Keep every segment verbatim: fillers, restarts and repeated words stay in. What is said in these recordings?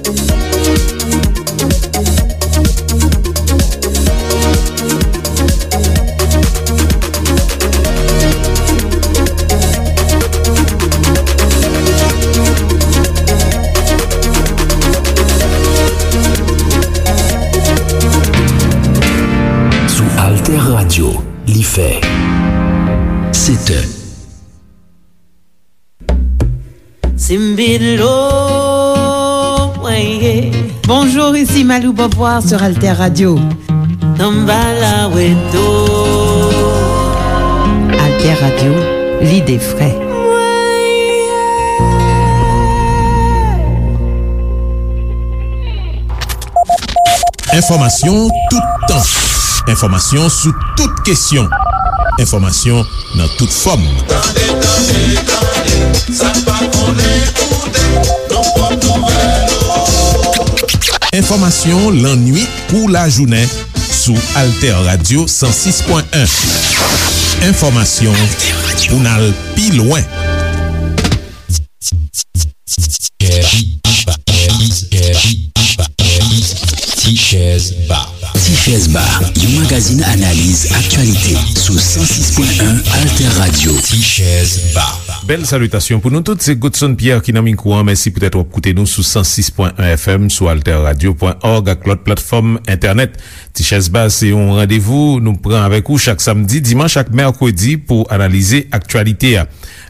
Sou Alter Radio, li fè sèt è. Simbilo, mwen ye. Bonjour, ici Malou Beauvoir sur Alter Radio. Tambala Weto. Alter Radio, l'idée frais. Enfòmasyon toutan. Enfòmasyon sou tout kesyon. Enfòmasyon nan tout fòm. Tande, tande, tande, sa n pa konnen koute, nan pwòp nouvèl ou. Enfòmasyon lannuit kou lajounen sou Alter Radio san sis pwen en. Enfòmasyon pou n al pi lwen. Tichèz Ba. Tichèz Ba, yon magazin analiz aktyalite sou san sis pwen en Alter Radio. Tichèz Ba. Bèl salitasyon pou nou tout, se Godson Pierre ki nan mikwo an. Mèsi poutèt w ap koute nou sou san sis pwen en F M, sou alter radio pwen org ak lòt platfòm entènèt. Tichèz Ba se yon randevou nou pran avèk ou chak samdi, dimanch ak mèkredi pou analize aktyalite a.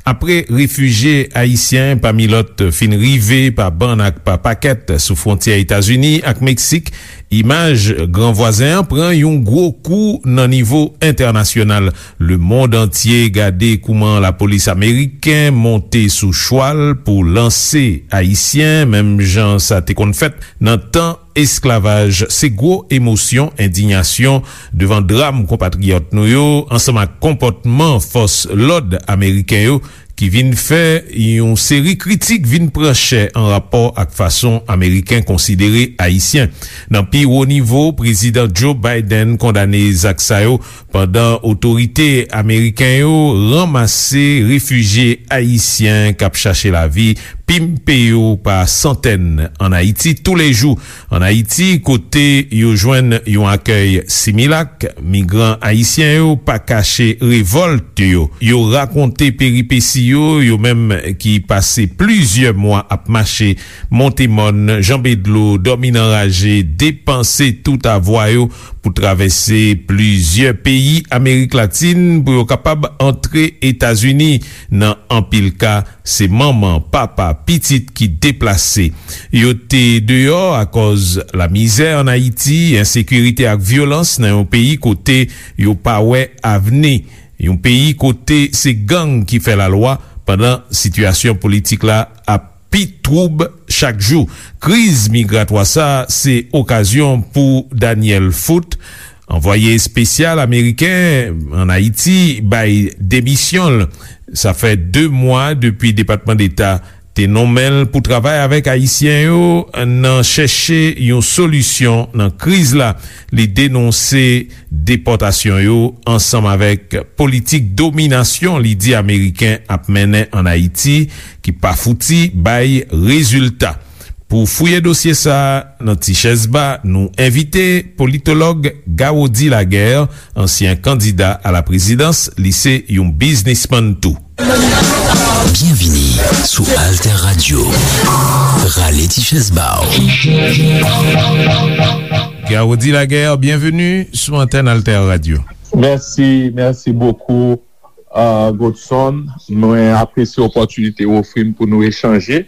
Apre refijye ayisyen, pami lòt, fin rive pa bann ak pa pakèt sou fwontyè Etazini ak Meksik, imaj gran vwazen an pran yon gwo kou nan nivo entènasyonal. Lemonn antye gade kouman lapolis ameriken monte sou chwal pou lanse ayisyen, menm jan sa te konn fèt nan tan esklavaj. Se gwo emosyon, endiyasyon devan dram konpatriyòt nou yo, ansanm ak konpòtman fòs lòd ameriken yo, ki vin fè yon seri kritik vin pran chè an rapò ak fason Ameriken konsidere Ayisyen. Nan pi wo nivo, Prezidan Joe Biden kondane zak sa yo, pandan otorite ameriken yo ranmase refijye ayisyen k ap chache lavi, pimpe yo pa santèn ann Ayiti toulejou. Ann Ayiti, kote yo jwenn yon akèy similak, migran ayisyen yo pa kache revòlt yo. Yo rakonte peripesi yo, yo menm ki pase plizyè mwa ap mache, monte mòn, janbe dlo, dòmi nan raje, depanse tout avwa yo pou travèse plizyè peyi Amerik Latin pou yo kapab antre Etazini. Nan anpil ka, se manman, papa, pitit ki deplase. Yo te deyò akòz lamizè ann Ayiti, ensekirite ak vyolans nan yon peyi kote yo pa wè avni. Yon peyi kote se gang ki fè lalwa, pandan sitiyasyon politik la ap pi twoub chak jou. Kriz migratwa sa a se okazyon pou Daniel Foot, anvwaye espesyal ameriken ann Ayiti, bay demisyon l. Sa fè de mwa depi Depatman Deta te nonmen l pou travay avèk Ayisyen yo nan chèche yon solisyon nan kriz la. Li denonse depòtasyon yo ansanm avèk politik dominasyon li di Ameriken ap mennen ann Ayiti, ki pa fouti bay rezilta. Pou fouye dosye sa a nan Tichèz Ba, nou envite politològ Gawody Laguerre, ansyen kandida a la prezidans, li se yon biznismann tou. Byenvini sou Alter Radio. Rale ti chèz ba w. Gawody Laguerre, byenveni sou antèn Alter Radio. Mèsi, mèsi bokou, uh, Godson. Mwen apresye opòtinite w ofri m pou nou echanje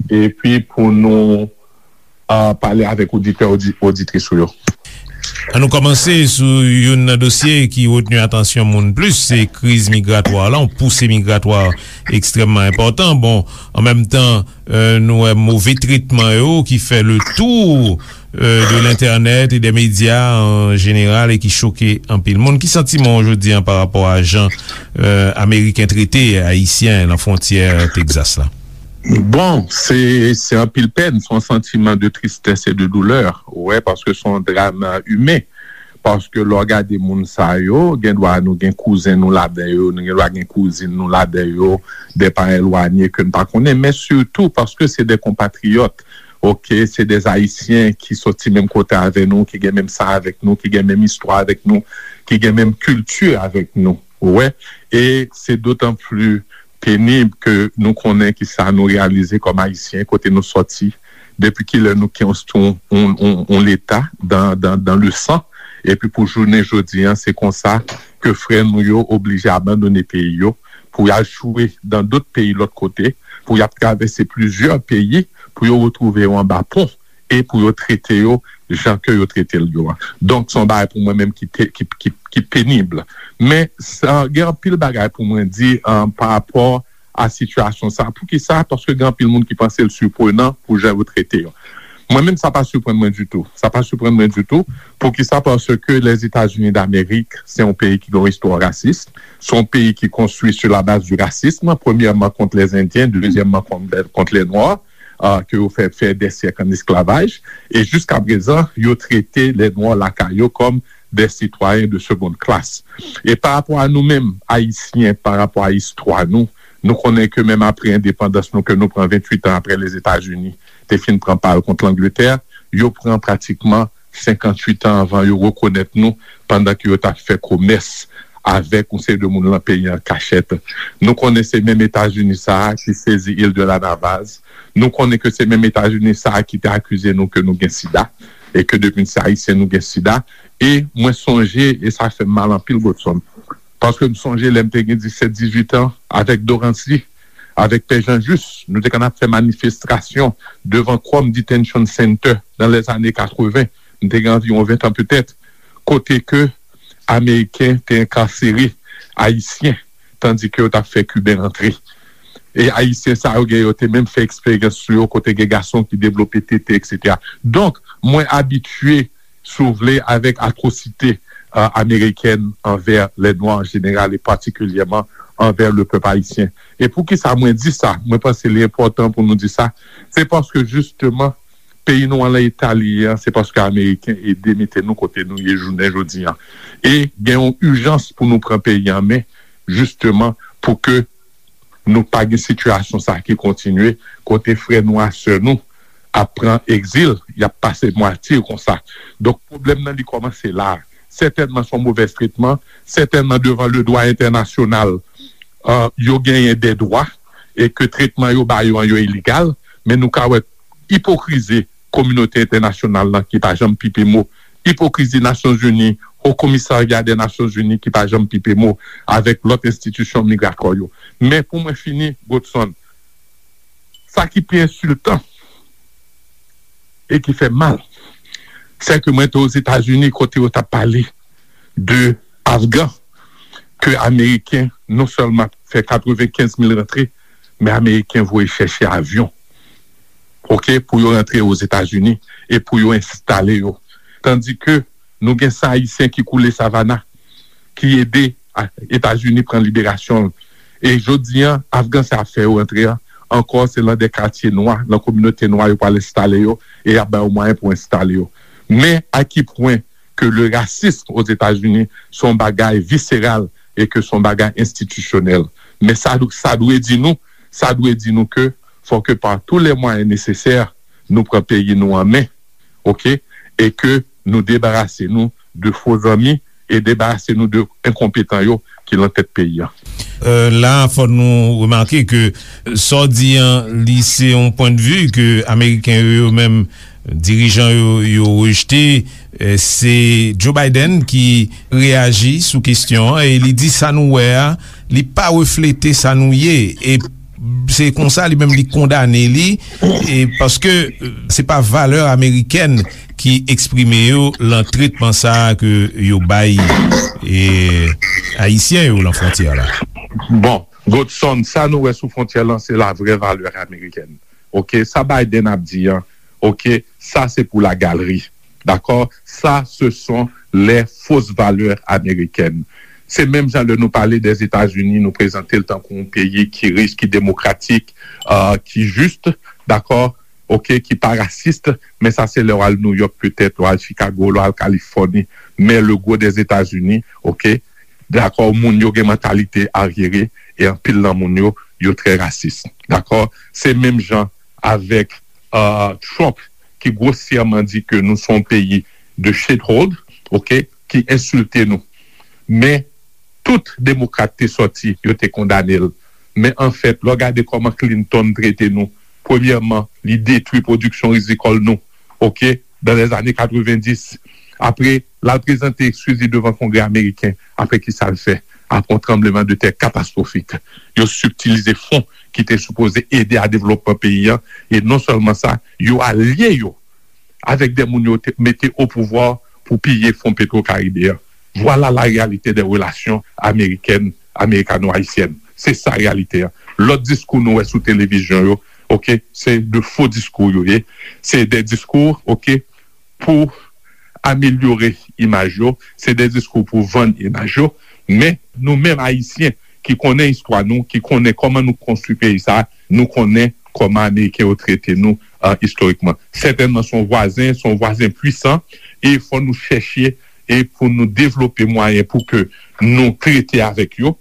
epi pou nou, uh, pale avèk oditè, odi-, oditris ou yo. An nou kòmanse sou youn nan dosye ki retni atansyon moun plis, se kriz migratwa la, yon pousi migratwa ekstrèmman enpòtan. Bon, an menm tan, euh, nou wè move tretman yo ki fè le tour, euh, de lentènèt e dè medya an jeneral e ki choke anpil moun. Ki santiman w jodi an pa rapò a jan, euh, Ameriken trete Ayisyen nan fwontyè Tegzas la? Bon, se, se anpil pèn, se yon santiman de tristès e de doulè, wè, paske se yon dram imen. Paske lè w gade moun sa yo, gen dwa nou gen kouzen nou ladan yo, nou gen dwa gen kouzin nou ladan yo, de pa elwanye ke n pa konnen, men sitou paske se de konpatriyòt. oke, se de Ayisyen ki soti menm kote avè nou, ki gen menm san avèk nou, ki gen menm istwa avèk nou, ki gen menm kilti avèk nou. Ou wè? E se dotan pli penib ke nou konnen ki sa nou reyalize kòm Ayisyen, kote nou soti, depi kilè nou konstwi yon, yon, yon, yon Leta dan, dan, dan le san, epi pou jounen jodi an, se konsa ke frè nou yo oblije abandone peyi yo, pou y al chwe dan dòt peyi lòt kote, pou y ap travèse plizyè peyi, pou yo retwouve yo anba pon, e pou yo trete yo jan ke yo trete l yo a. Donk, se yon bagay pou mwen menm ki, te- ki, ki, ki penib. Men, sa, gen anpil bagay pou mwen di um, pa rapò a sitiyasyon sa. Poukisa? Paske gen anpil moun ki panse l siprenan pou jan yo trete yo. Mwen menm, sa pa siprann mwen ditou. Sa pa siprann mwen ditou. Poukisa? Paske Lèzetazini Damerik, se yon peyi ki gen yon istwa rasis. Se yon peyi ki konstwi sou la baz di rasism, premyèman kont lèzendyen, dezyèmman kont, kont lè nwa, uh, ke yo fè, fè dè syèk an esklavaj. E jiska prezan, yo trete lè nwa lakay yo kòm de sitwayen de seconde classe. E pa rapò a nou menm, Ayisyen, pa rapò a istwa nou, nou konnen ke menm apre endepandans nou, ke nou pran venntuit an apre Lèzetazini te fin pran pa l kont Langletè, yo pran pratikman senkanntuit an anvan yo rekonèt nou, pandan ke yo t ap fè komès avèk yon seri de moun lan peyi an kachèt. Nou konnen se menm Etazini sa a ki sezi il de la Navaz. Nou konnen ke se menm Etazini sa a ki te akize nou ke nou gen sida, e ke depi n se Ayisyen, nou gen sida. E mwen sonje, e sa fè m mal anpil, Godson, paske m sonje lè m te gen disèt, dizuit an, avèk Dorancy, avèk Pè Jean Juste, nou te konn ap fè manifestasyon devan Crom Detention Center nan lèzane katreven. M te gen anviwon ven an petèt, kote ke Ameriken te enkasere Ayisyen, tandi ke yo t ap fè Kiben rantre. E Ayisyen sa yo gen, yo te menm fè eksperyans sou yo, kote gen gason ki devlope tete, etsetera. Donk, mwen abitye, si w vle, avèk atwosite uh, amerikèn anvè lè nwa an jeneral e patikilyèman anvè le pèp ayisyen. E poukisa mwen di sa? Mwen panse li enpòtan pou nou di sa. Se paske jisteman, peyi nou an lan eta li ye an, se paske Ameriken ede mete nou kote nou ye jounen jodi an. E gen yon ijans pou nou pran peyi an men, jisteman, pou ke nou pa gen sitiyasyon sa ki kontinye, kote frè nou a sè nou ap pran egzil, y ap pase matye konsa. Donk, pwoblèm nan li kòmanse la. Sètènman, se yon movèz tretman, sètènman, devan le dwa entènasyonal, uh, yo genyen de dwa, e ke tretman yo ba yo an yo iligal, men nou ka wè ipokrizi kominote entènasyonal lan ki pa janm pipe mo, ipokrizi Nasyonzini, Ho Komisarya de Nasyonzini ki pa janm pipe mo avèk lòt enstitisyon migratwa yo. Men pou mwen fini, Godson, sa ki pi ensiltan e ki fè mal, se ke mwen te Ozetazini kote yo t ap pale de Afgan, ke Ameriken non sèlman fè katrevenkenz mil rantre, men Ameriken voye chèche avyon, oke, pou yo rantre Ozetazini e pou yo enstale yo. Tandi ke nou gen san Ayisyen ki koule Savannah, ki ede a- Etazini pran liberasyon l. E jodi an, Afgan sa ap fè yo rantre an, ankò se lan de katye nwa, lan kominote nwa yo pral enstale yo, e y ap ba yo mwayen pou enstale yo. Men a ki pwen ke le rasism Ozetazini se yon bagay viseral e ke se yon bagay enstitisyonèl. Men sa, sa dwe di nou, sa dwe di nou ke fò ke pa tou lè mwayen nesesè, nou pran peyi nou an men, oke, e ke nou debarase nou de fo zanmi e debarase nou de enkonpetan yo ki lan tèt peyi an. Euh, la, fò nou remake ke sa w di an, li se yon pwendvi ke Ameriken yo, yo menm, dirijan yo, yo rejte. Euh, se Joe Biden ki reyaji sou kesyon an e li di sa nou wè a, li pa reflete sa nou ye. E se konsa li menm li kondane li, e paske, euh, se pa valè amerikèn ki eksprime yo lan tretman sa a ke yo bay, e, Ayisyen yo lan fwontyè la. Bon, Godson, sa nou wè sou fwontyè lan, se la vrè valè amerikèn. Oke, sa Biden ap di an, oke, sa se pou la galeri. Dakò? Sa, se son les fausses valeurs américaines. Se menm jan lè nou pale Dèzetazini, nou prezante l tankou yon peyi ki rich, ki demokratik, euh, ki jis, dakò? Oke, ki pa rasis, men sa se lè w al Nouyòk petèt, w al Chikago, w al Kalifòni, men le gwo Dèzetazini, oke, dakò, moun yo gen mantalite aryere, e anpil nan moun yo, yo trè rasis, dakò? Se menm jan avèk uh, Trump ki grosyèman di ke nou se yon peyi de shithole, ok, ki ensilte nou. Men tout demokrat te sòti, yo te kondane l. Men anfèt, lè w gade kòman Clinton trete nou, premyèman, li detwi pwodiksyon rizikòl nou, ok, dans les années quatre-vingt-dix. Apre, l al prezante ekskiz li devan Kongrè ameriken. Apre, ki sa l fè? Apre yon tranbleman de tè katastwofik, yo sibtilize fon ki te sipoze ede a devlopman peyi a. E non sèlman sa, yo alye yo avèk de moun yo te mete o pouvwa pou piye fon Petro Caribe a. Vwala la reyalite de relasyon amerikèn, amerikano-ayisyèn. Se sa reyalite a. Lòt diskou nou wè sou televizyon yo, ok, se de fo diskou yo ye. Se de diskou, ok, pou amelyore imaj yo, se de diskou pou vann imaj yo. Men nou menm Ayisyen ki konnen istwa nou, ki konnen kòman nou konstwi peyi sa, nou konnen kòman Ameriken yo trete nou, uh, istorikman. Sètènman, se yon vwazen, se yon vwazen pwisan, e fò nou chèche e pou nou devlope mwayen pou ke nou trete avèk yo,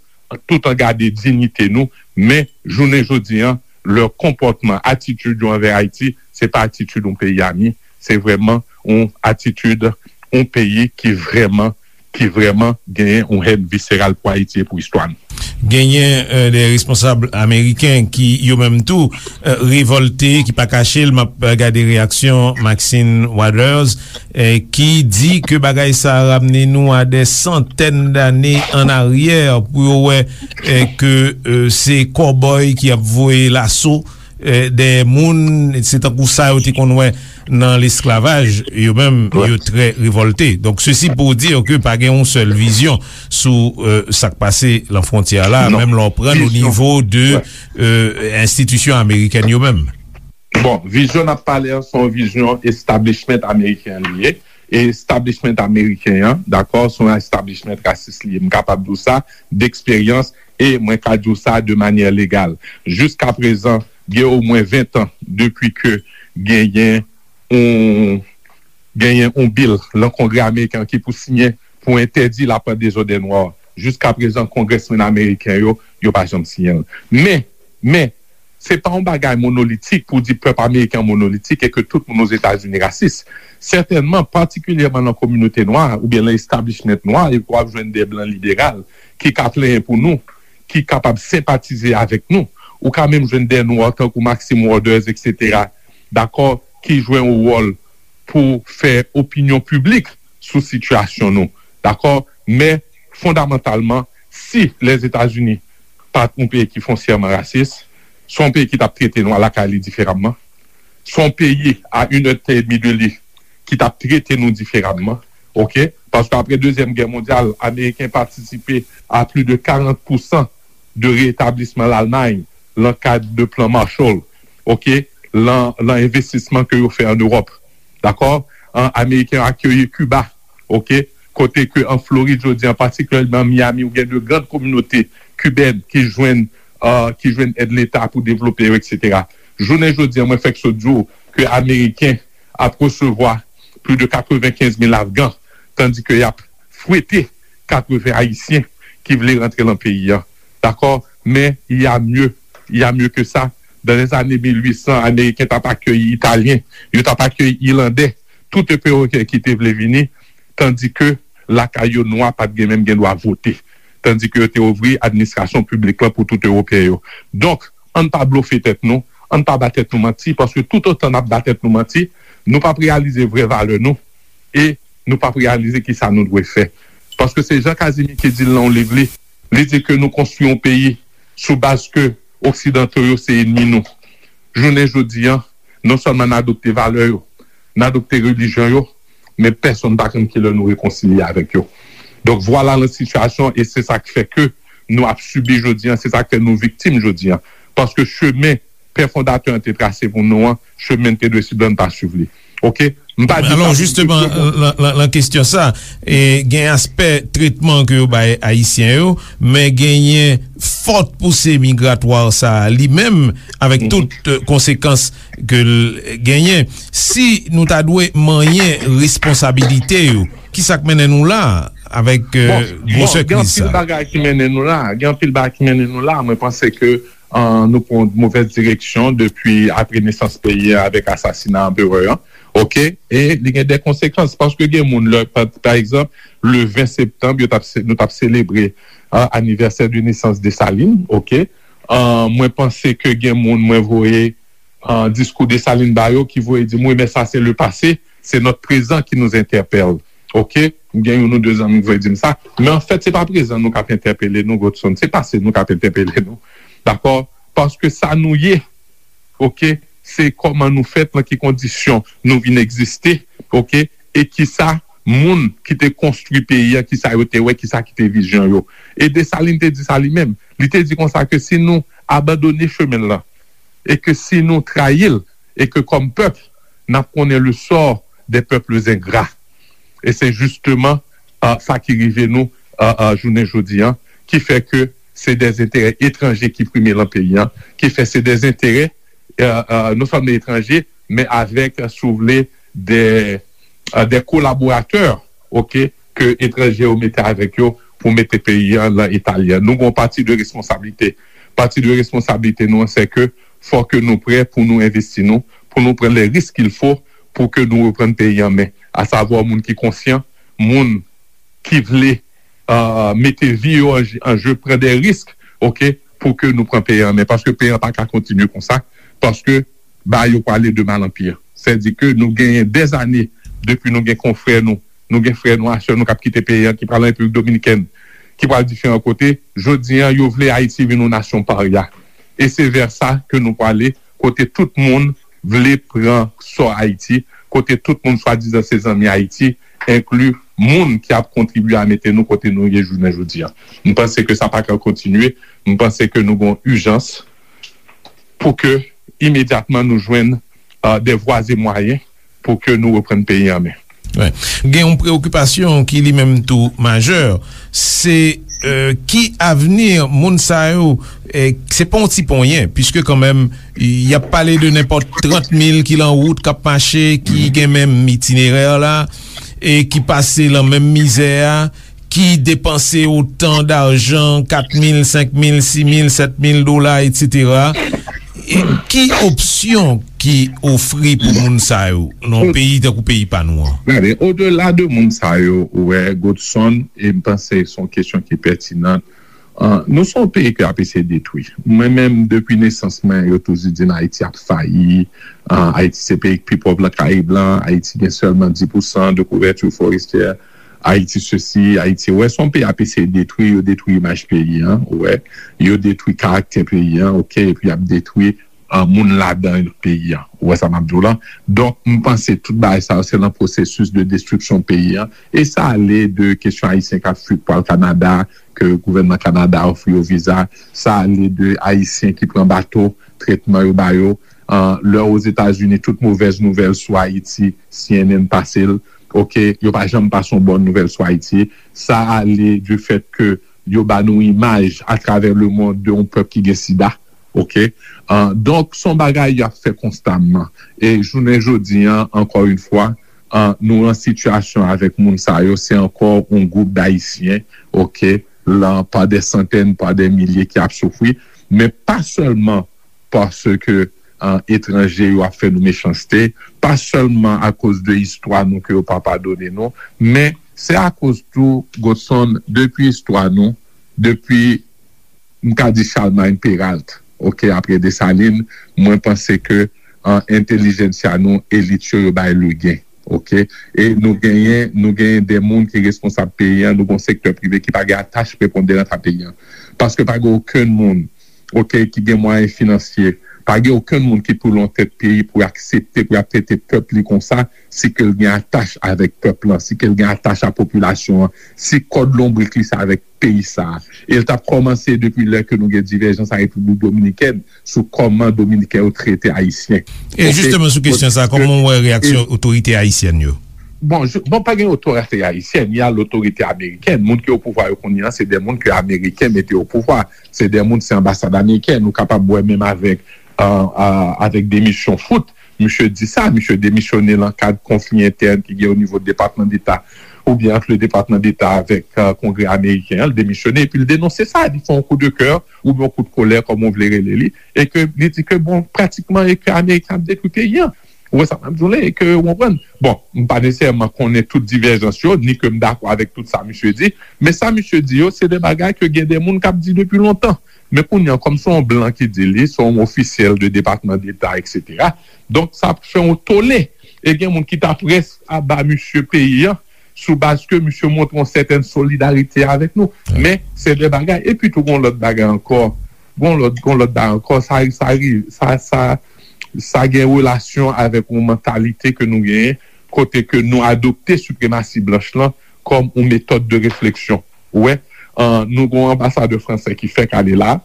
tout an gade diyite nou, men jounen jodi an, lè konpòtman, atitid yo anvè Ayiti, se pa atitid yon peyi ami, se vrèman yon atitid yon peyi ki vrèman, ki vrèman genyen yon hèn viseral pou Ayiti e pou istwa nou. Genyen euh, de responsab ameriken ki yo menm tou euh, revòlte, ki pa kache l. M ap gade reyaksyon Maxine Waters, eh, ki di ke bagay sa a ramne nou a de santèn dane an aryè pou yo wè eh, ke eh, se kòbòy ki ap voye laso eh, dèyè moun, se tankou sa yo te konn wè nan lesklavaj, yo menm yo trè revòlte. Donk sesi pou di ke pa gen yon sèl vizyon sou eh, sa k pase lan fwontyè la, menm lè w pran l o nivo de eh, enstitisyon amerikèn yo menm. Bon, vizyon n ap pale an, se yon vizyon establishment ameriken li ye. E establishment ameriken an, dakò, se yon establishment rasis li ye. M kapab di w sa, deksperyans, e mwen ka di w sa de manyè legal. Jiskaprezan, gen omwen ven tan depi ke genyen yon genyen yon bil lan Kongrè ameriken an ki pou siyen pou entèdi lapant dezòdè nwa. Jiskaprezan, kongrèsmenn ameriken yo, yo pa janm siyen l. Men, men, se pa yon bagay monolitik pou di pèp ameriken an monolitik e ke tout moun Ozetazini rasis. Sètènman, patikilyèman nan kominote nwa oubyen nan establishment nwa, e w ap jwenn de blan liberal ki ka plenyen pou nou, ki kapab senpatize avèk nou. Ou ka menm jwenn de nwa tankou Maxine Waters, etsetera, dakò, ki jwe yon wòl pou fè opinyon piblik sou sitiyasyon nou. Dakò? Men, fondamantalman, si Lèzetazini pa t yon peyi ki fonsyèman rasis, se yon peyi ki t ap trete nwa lakay li diferaman, se yon peyi a inèdtan edmi de li ki t ap trete nou diferaman, oke? Paske apre Dezyèm Gè Mondyal, Ameriken patisipe a plis de karant pousan de retablisman Lalmay nan kad de plan Marshall, oke, lan, lan envestisman ke yo fè an Ewòp. Dakò? An, Ameriken yo akeyi Kiba, oke, kote ke an Florid jodi an, patikilyèman Miami, ou gen de grann kominote kibèn ki jwenn, uh, ki jwenn èd Leta pou devlope yo, etsetera. Jounen jodi an, mwen fèk sot di w ke Ameriken ap resevwa plis de katrevenkenz mil Afgan, tandi ke y ap fwete katreven Ayisyen ki vle rantre lan peyi an. Dakò? Men, il y a mieux, il y a mieux que ça. Dans les années mil uit san, Ameriken t ap akeyi Italyen, yo t ap akeyi Ilandè, tout Ewopeyen ki te vle vini, tandi ke lakay yo, nwa pa t gen menm gen dwa vote. Tandi ke yo te ouvri administrasyon piblik lan pou tout Ewopeyen yo. Donk, ann pa blofe tèt nou, ann pa ba tèt nou manti, paske toutotan n ap ba tèt nou manti, nou p ap reyalize vrè valè nou, e nou p ap reyalize kisa nou dwe fè. Paske se Jean Casimir ki di l nan yon liv li, li di ke nou konstwi yon peyi sou baz ke Oksidanto yo se enmi nou. Jounen jodi an, non sèlman n adopte valè yo, n adopte relijyon yo, men pèsonn pa konn kilè nou rekonsilye avèk yo. Donk, vwala lan sitiyasyon, e se sa k fè ke nou ap sibi jodi an, se sa k fè nou viktim jodi an. Paske chemen pè fondatè an te trase pou nou an, chemen n te dwe swiv la, n pa swiv li. Oke? M pa di sa pou jisteman, lan, lan, lan kesyon sa, e, gen aspè tretman ke yo bay Ayisyen yo, men genyen fòt pouse migratwa sa a li menm, avèk tout eh, konsekans ke l genyen. Si nou ta dwe manyen responsabilite yo, ki sa k mennen nou la avèk eh, gwosè kriz sa? Bon, bon, gen anpil bagay ki mennen nou la. Gen anpil bagay ki mennen nou la. Mwen panse ke an, nou pran yon movèz direksyon depi apre nesans peyi a avèk asasina anperè an. Oke? E li gen de konsekans, paske gen moun, lè, pa, pa egzanp, le ven septanm, yo t ap se-, nou t ap selebre, an, anivèsè de nesans Desalin, oke? An, mwen panse ke gen moun, mwen voye, an, diskou Desalin ba yo ki voye di m, wi, men sa se le pase, se notre présent qui nous interpelle. Oke? Gen youn ou de zanmi ki voye di m sa. Men anfèt, se pa prezan nou k ap entèpele nou, Godson. Se pase nou k ap entèpele nou. Dakò? Paske sa nou ye, oke, se kòman nou fèt, nan ki kondisyon nou vin egziste, oke, e kisa moun ki te konstwi peyi a, kisa yo te wè, kisa ki te vizyon yo. E Desalin te di sa li menm. Li te di konsa ke si nou abandone chemen l lan, e ke si nou trayi l, e ke kòm pèp, n ap konnen le sort des peuples ingrats. E se jisteman, ah, sa ki rive nou, ah, ah, jounen jodi an, ki fè ke se de enterè etranje ki prime lan peyi an, ki fè se de enterè, ah, ah, non sèlman etranje, men avèk, si w vle, de, ah, de kolaboratè, oke, ke etranje yo mete avèk yo pou mete peyi an lan eta li an. Nou gen yon pati de responsablite. Pati de responsablite nou an, se ke fò ke nou prè pou nou envesti nou, pou nou pran les risques qu'il faut pou ke nou reprann peyi an men. Asavwa moun ki konsyan, moun ki vle, ah, mete vi yo an, an je, pran de risk, oke, pou ke nou pran peyi an men. Paske peyi an pa ka kontinye konsa, paske bagay yo prale de mal an pi. Sètadi ke nou genyen dèzane depi nou gen konfrè nou, nou gen frè nou, a sè nou k ap kite peyi an, ki pral an Repiblik Dominikèn, ki pral diferan kote. Jodi an, yo vle Ayiti vin yon nasyon parya. E se vè sa ke nou prale, kote tout moun vle pran sò Ayiti, kote tout moun swadizan se zanmi Ayiti, enkli moun ki ap kontribye a mete nou kote nou ye jounen jodi an. M panse ke sa pa ka kontinye. M panse ke nou gen yon ijans pou ke imedyatman nou jwenn, ah, de vwa e mwayen pou ke nou reprann peyi an men. Wi. Gen yon preokipasyon ki li menm tou majè, se, eh, ki avni moun sa yo, eh, se pa yon ti ponyen, piske kanmenm, y ap pale de nenpòt trant mil ki lan wout, k ap mache, ki gen menm itinerè la, e ki pase lan menm mizè a, ki depanse otan dajan, kat mil, senk mil, sis mil, sèt mil dola, etsetera. E ki opsyon ki ofri pou moun sa yo nan yon peyi tankou peyi pa nou an? Gade, odela de moun sa yo, ou wè, Godson, e m panse se yon kesyon ki pètinan. Ah, nou se yon peyi ke y ap eseye detwi. Mwen menm, depi nesans mwen, yo toujou di m Ayiti ap fayi. Ah, Ayiti se peyi ki pi pòv lan Karayib lan. Ayiti gen sèlman dis pousan de kouvèti fòrestyè. Ayiti sesi, Ayiti, ou wè, se yon peyi y ap eseye detwi, yo detwi imaj peyi an, ou wè, yo detwi karaktè peyi an, oke, epi y ap detwi, ah, moun ladan peyi an. Ou wè sa m ap di w lan? Donk, m panse tout bagay sa yo, se nan pwosesis de destriksyon peyi an. E sa ale de kesyon Ayisyen k ap fui pou al Kanada, ke gouvènman Kanada ofri yo viza. Sa ale de Ayisyen ki pran bato, tretman yo ba yo. Ah, lè Ozetazini, tout movèz nouvèl sou Ayiti, C N N pase l. Oke, yo pa janm pase yon bòn nouvèl sou Ayiti. Sa ale du fèt ke yo ba nou imaj atravè lemonn de yon pèp ki gen sida. Oke? Ah, donk, se yon bagay y ap fè konstamman. E jounen jodi an, ankò yon fwa, ah, nou an sitiyasyon avèk moun sa yo, se ankò yon gwoup d Ayisyen, oke, lan, pa de santèn, pa de milye ki ap soufri, men pa sèlman paske, ah, etranje yo ap fè nou mechanste, pa sèlman akoz de istwa nou ke yo pa padone nou, men se akoz tou, Godson, depi istwa nou, depi, m ka di Charlemagne Péralte, oke, apre Desalin, mwen panse ke, ah, entèlijensya nou, elit yo, yo bay legen, oke? E nou genyen, nou genyen de moun ki responsab peyi an, nou gen yon sektè prive ki pa gen atach preponderan a peyi an. Paske pa gen okenn moun, oke, ki gen mwayen finansye, pa gen okenn moun ki pou lan tèt peyi pou aksepte, pou y ap trete pèp li konsa, si ke l gen atach avèk pèp lan, si ke l gen atach a popilasyon an, si kòd lonbrik li se avèk peyi sa a. E l t ap kòmanse depi lè ke nou gen divèjans a Repiblik Dominikèn sou kòman Dominiken yo trete Ayisyen. E jisteman sou kesyon sa, kòman w wè reyaksyon otorite ayisyèn yo? Bon, je, bon, pa gen otorite ayisyèn, y a lotorite amerikèn. Moun ki o pouvwa yo kounye a, se de moun ke Ameriken mete o pouvwa. Se de moun, se anbasad amerikèn. Ou kapab wè menm avèk, euh, euh, avèk demisyon Foote. Misye di sa, misye demisyone lan kad konfli entèn ki gen o nivo Depatman Deta. oubyen ant le Depatman Deta avèk, euh, Kongrè ameriken an, l demisyone, epi l denonse sa, li fè yon kou de kè, oubyen yon kou de kolè, kòm ou vle rele li, e ke li di ke, bon, pratikman, e ke Ameriken ap detwi peyi an. Ou wè sa m ap di w la, e ke, ou konprann? Bon, m pa nesesèman konnen tout divèjans yo, ni ke m dakò avèk tout sa misye di, men sa misye di yo, se de bagay ke gen de moun k ap di depi lontan. Men kounye a, kòm se yon blan ki di li, se yon ofisyèl de Depatman Deta, etsetera. Donk, sa ap fè yon tole. E gen moun ki ta près a ba misye peyi an, sou baz ke misye montre yon sètèn solidarite avèk nou. Men, se de bagay. Epi tou, gon lòt bagay ankò. Gon lòt, gon lòt bagay ankò. Sa, sa, sa, sa, sa gen relasyon avèk yon mantalite ke nou genyen, kote ke nou adopte sipremasi blanch lan kòm yon metòd de refleksyon. Ou wè, an, nou gon anbasadè fransè ki fèk ale la,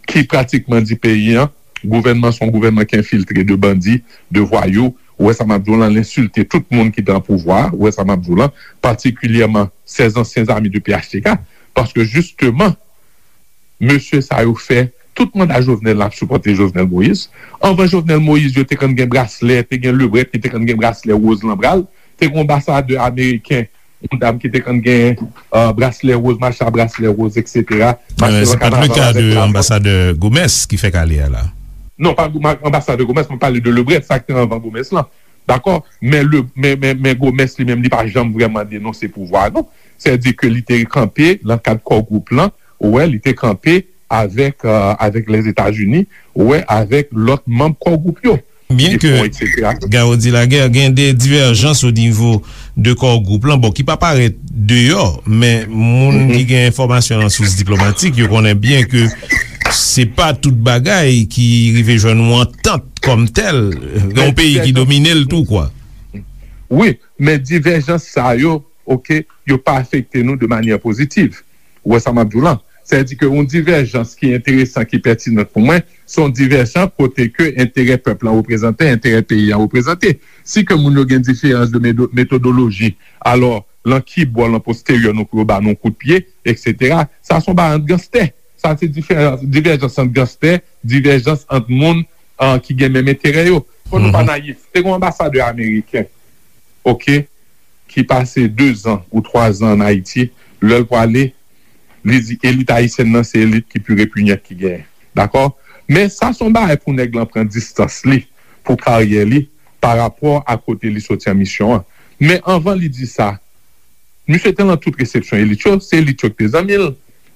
ki pratikman di peyi an, gouvènman se yon gouvènman ki enfiltre de bandi, de vwayou. Ou wè sa m ap di w lan, l ensilte tout moun ki te an pouvwa. Ou wè sa m ap di w lan, patikilyèman, sèz ansyen zami de P H T K. Paske jisteman, mesye sa yo fè tout manda Jovenel la ap sipòte Jovenel Moïse. Anvan Jovenel Moïse, yo te konn gen braslè, te gen Lebret ki te konn gen braslè woz lan bra l, te gen yon anbasadè ameriken, yon dam ki te konn gen, euh, braslè woz, mache a braslè woz, etsetera. Mache nan kanaval avèk lajan. Se pa t le ka de anbasadè Gomes ki fèk ale a la? Non, pa anbasadè Gomes, mwen pale de Lebret, sa ki te anvan Gomes lan. Dakò? Men, le, men, men, men Gomes li menm, li pa janm vrèman denonse pouvwa, non. Sètadi ke li te kanpe nan kad Core Group lan, ou wè, li te kanpe avèk, euh, avèk Lèzetazini, ou wè, avèk lòt manm Core Group yo. Byen ke Garo di Lagè gen de divèjans o nivo de Core Group lan, bon, ki pa parèt deyò, men moun ki gen enfòmasyon nan sous diplomatik, yo konnen byen ke se pa tout bagay ki rive jwenn yon antant kòm tèl, gen yon peyi ki domine l tou, kwa. Wi, men divèjans sa yo, oke, yo pa afekte nou de manyè pozitiv. Ou wè sa m ap di w lan? Sètadi ke yon divèjans ki enteresan, ki pètinan pou mwen, se yon divèjans kote ke enterè pèp lan reprezante, enterè peyi an reprezante. Si ke moun yo gen diferans de medo-, metodoloji, alò, lan ki bò, lan posteryè, nou pou yo ba nou kout pye, etsetera. Sa se yon bagay ant ganstè. Sa se diferans, divèjans ant ganstè, divèjans ant moun, ah, ki gen menm enterè yo. Fò nou pa nayif. Te gen yon anbasadè ameriken, oke, ki pase dezan ou twazan ann Ayiti, lè l prale, li di elit ayisyèn nan se elit ki pi repinyant ki genyen. Dakò? Men sa se yon bagay pou nèg lan pran distans li, pou karyè li, pa rapò a kote li soti an misyon an. Men anvan li di sa, misye te lan tout resepsyon elit yo, se elit yo ki te zanmi l.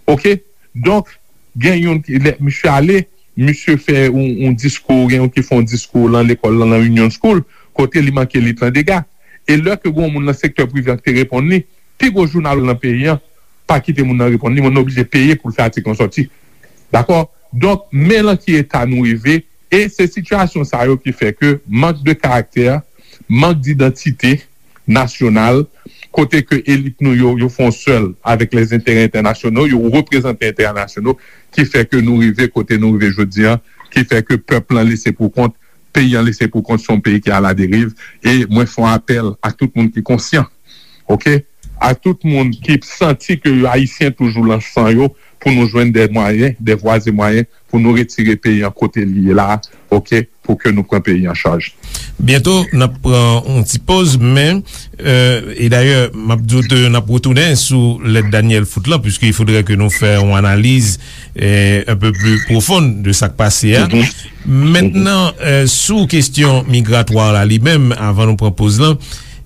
Oke? Donk, gen youn ki, lè misye ale, misye fè yon, yon diskou, gen youn ki fè yon diskou lan lekòl lan, lan Union School, kote li manke elit lan dega. E lè ke gen yon moun nan sektè prive an ki te reponn li, pi gwo jounal lan peyi an pa kite moun nan reponn li, moun nan oblije peye pou l fè atik lan sòti. Dakò? Donk, men lan ki eta nou rive, e se sitiyasyon sa yo ki fè ke mank de karaktè, mank didantite nasyonal, kote ke elit nou yo, yo fè yon sèl avèk lèzenterè entènasyonal, yo reprezante enterè nasyonal, ki fè ke nou rive kote nou rive jodi an, ki fè ke pèp lan lese pou kont, peyi an lese pou kont, se yon peyi ki aladeriv, e mwen fè yon apèl a tout moun ki konsyan, oke? A tout moun ki santi ke yo ayisyen toujou lan san yo, pou nou jwenn de mwayen, de vwa e mwayen, pou nou retire peyi an kote li ye la, oke? Pou ke nou pran peyi an chaj. Byento, n ap pran yon ti poz, men, euh, e dayè, m ap di w ke n ap retounen sou lèt Daniel Foot lan, puiske il faudrait que nou fè yon analiz, euh, un peu plus profonde de sa k pase a. Mentnan, euh, sou kesyon migratwa la li menm, avan nou pran poz lan,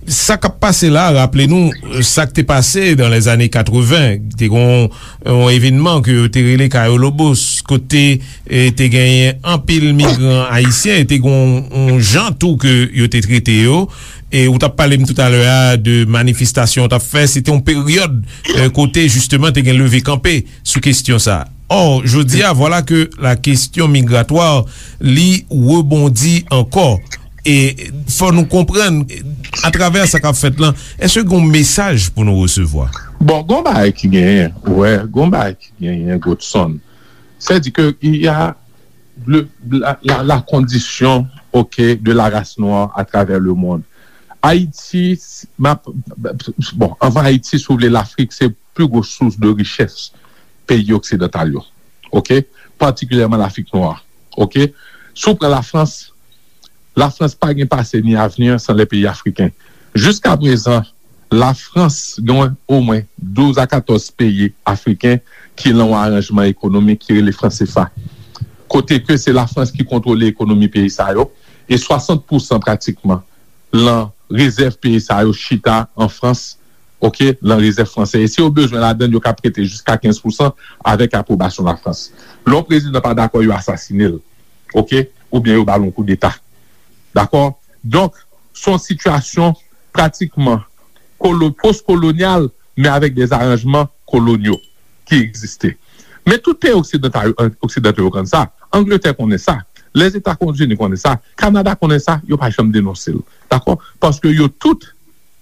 sa k ap pase la, raple nou, euh, sa k te pase dans les années quatre-vingts, te gon yon evènman ke yo te rele Cayo Lobos, kote, e, te genyen anpil migran ayisyen, e te gon yon jan tou ke yo te trete yo. E ou t ap pale m toutalè a de manifestasyon yo t ap fè, se te yon peryòd, e, kote jisteman te gen leve kanpe sou kesyon sa. Ò, jodi a, vwala ke la kesyon migratwa, li rebondi ankò. E fò nou konprann, atravè sa k ap fèt lan, èske gen yon mesaj pou nou resevwa? Bon, gon bagay ki genyen, wè, gon bagay ki genyen, Godson. Sètadi ke il y a le, la, la, la condition, ok, de la race noire à travers le monde. Ayiti, m ap, bon, anvan Ayiti, si w vle, Lafrik se pli gwo sous de richès peyi oksidantal yo, ok? Patikilyèman Lafrik nwa, ok? Si w pran Lafrans, Lafrans pa gen pase ni avni san lè peyi afriken. Jiska prezan, Lafrans gen omwen douz a katòz peyi afriken ki lan yon aranjman ekonomik ki rele fransefa. Kote ke se Lafrans ki kontwole ekonomi peyi sa yo, e swasant pousan pratikman lan rezèv peyi sa yo chita an Frans, oke, lan rezèv fransè. E si yo bezwen ladann, yo ka prete jiska kenz pousan avèk apwobasyon Lafrans. Lè yon prezidan pa dakò, yo asasine l, oke, oubyen yo ba l yon koudeta. Dakò? Donk, se yon sitiyasyon pratikman kolo-, pos-kolonyal, men avèk de aranjman kolonyal ki egziste. Men tout peyi oksidantal, oksidantal yo konn sa. Angletè konnen sa. Lèzetazini konnen sa. Kanada konnen sa. Yo pa janm denonse l. Dakò? Paske yo tout,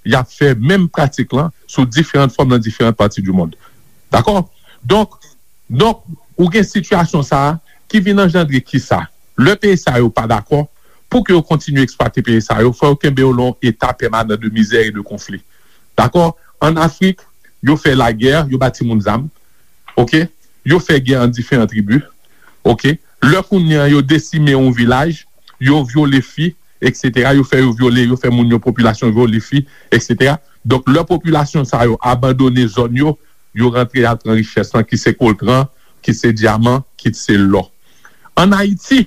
y ap fè menm pratik lan sou diferan fòm nan diferan pati di mond. Dakò? Donk, donk, ou gen sitiyasyon sa a ki vin anjandre kisa? Lè peyi sa yo pa dakò, pou ke yo kontinye eksplwate peyi sa yo, fò yo kenbe yo lan yon eta pèmanan de mizè e de konfli. Dakò? An Afrik, yo fè lagè, yo ba timoun zam, oke? Yo fè gè ant diferan tribi, oke? Lè kounye a yo desime yon vilaj, yo vyole fi, etsetera, yo fè yo vyole, yo fè moun yo, popilasyon vyole fi, etsetera. Donk, lè popilasyon sa yo abandone zòn yo, yo rantre al pran richès lan, ki se koltran, ki se dyaman, ki se lò. Ann Ayiti,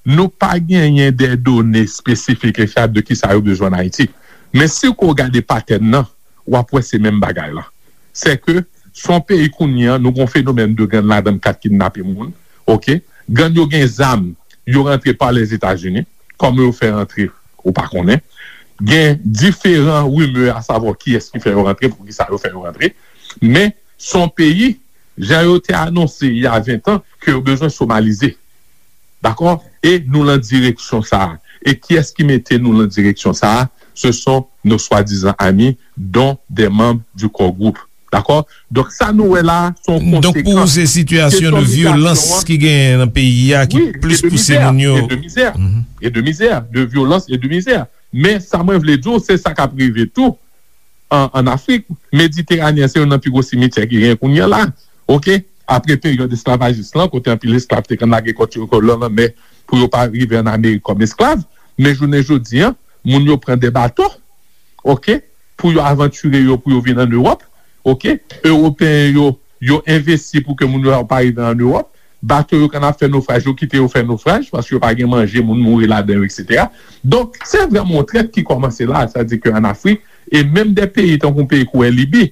nou pa genyen de done espesifik e fyab de kisa yo bezwen ann Ayiti. Men si w gade patèn nan, w ap wè se menm bagay la. Se ke se yon peyi kounye a, nou gen yon fenomèn de gang ladan k ap kidnape moun, oke? Gang yo gen zam, yo rantre pa Lèzetazini, kòman yo fè rantre, ou pa konnen. Gen diferan rimè a savwa kiyès ki fè yo rantre, poukisa yo fè yo rantre. Men, se yon peyi, jan yo te anonse il y a vingt ans, ke yo bezwen somalize. Dakò? E nou lan direksyon sa a. E kiyès ki mete nou lan direksyon sa a? Ce sont nos soi-disant amis, dont des membres du core group. Dakò? Donk, sa nou wè la, se yon konsekans. Donk, pou ou, se sitiyasyon de vyolans ki genyen nan peyi a ki plis pouse moun yo. Wi, e de mizè, e de mizè, e de mizè, de vyolans e de mizè. Men, sa mwen vle di w, se sa k ap rive tou an, an Afrik. Mediteranen an, se youn nan pi gwo simityè ki genyen kounye a la. Oke? Apre peryòd esklavajis lan, kote anpil esklav te konn lage kò yo lan lanmè pou yo pa rive an Amerik kòm esklav. Men jounen jodi a, moun yo pran de bato, oke, pou yo avantire yo, pou yo vin an Ewòp, oke. Ewopeyen yo, yo envesti pou ke moun yo pa rive an Ewòp. Bato yo konn ap fè nofraj, yo kite yo fè nofraj, paske yo pa gen manje, moun mouri ladan yo, etsetera. Donk, se vrèman yon trèt ki kòmanse la, sa di ke an Afrik, e menm de peyi tankou yon peyi kou Libi,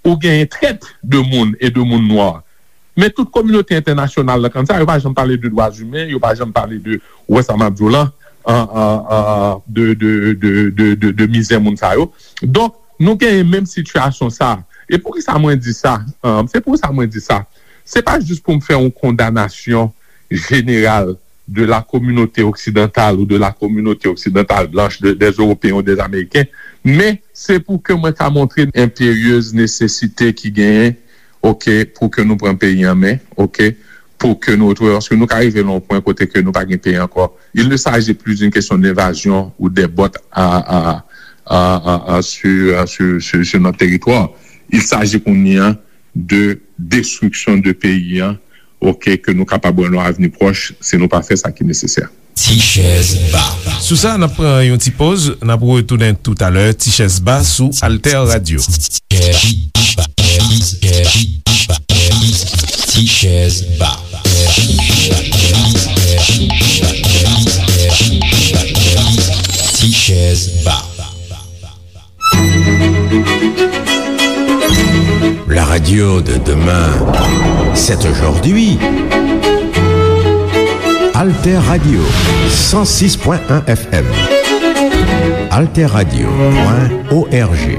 ou genyen trèt de moun e de moun nwa. Men tout kominote entènasyonal la konn sa, yo pa janm pale de dwa imen, yo pa janm pale de, ou wè sa m ap di w lan, an, an, an, de, de, de, de, de, de mizè moun sa yo. Donk, nou genyen menm sitiyasyon sa. E poukisa mwen di sa? An, se pou sa mwen di sa. Se pa jis pou m fè yon kondanasyon jeneral de la communauté occidentale ou de la communauté occidentale blanche, de, des Européens ou des Américains, men se pou ke mwen ka montre enperyez nesesite ki genyen, oke, pou ke nou pran peyi an men, oke, pou ke nou retwouve, paske nou ka rive nan yon pwen kote ke nou pa gen peyi ankò. Il ne s'agit plus d'une question d'invasion ou des bottes à, à, à, à, à, sur, sur, sur, sur notre territoire. Il s'agit kounye a de destriksyon de peyi an, oke, ke nou kapab wè nan avni pwòch, si nou pa fè sa ki nesesè. Ti chèz ba. Sou sa, n ap pran yon ti poz, n ap retounen toutalè. Ti chèz ba sou Alter Radio. Ti chèz ba. Ti chèz ba. La radio de demain, c'est aujourd'hui. Alter Radio, cent six point un F M. Alter Radio point O R G.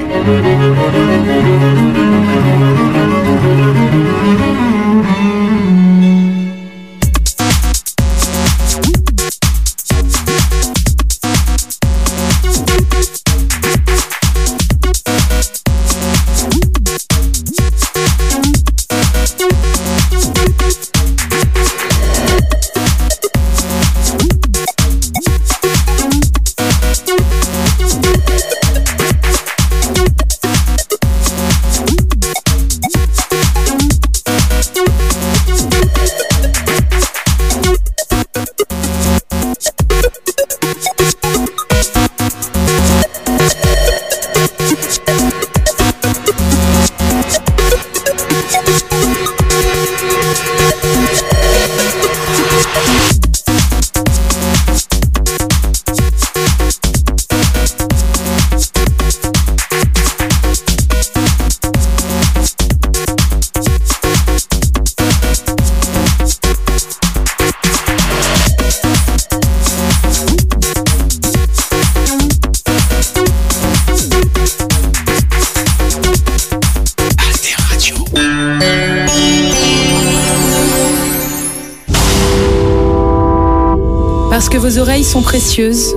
Parce que vos oreilles sont précieuses.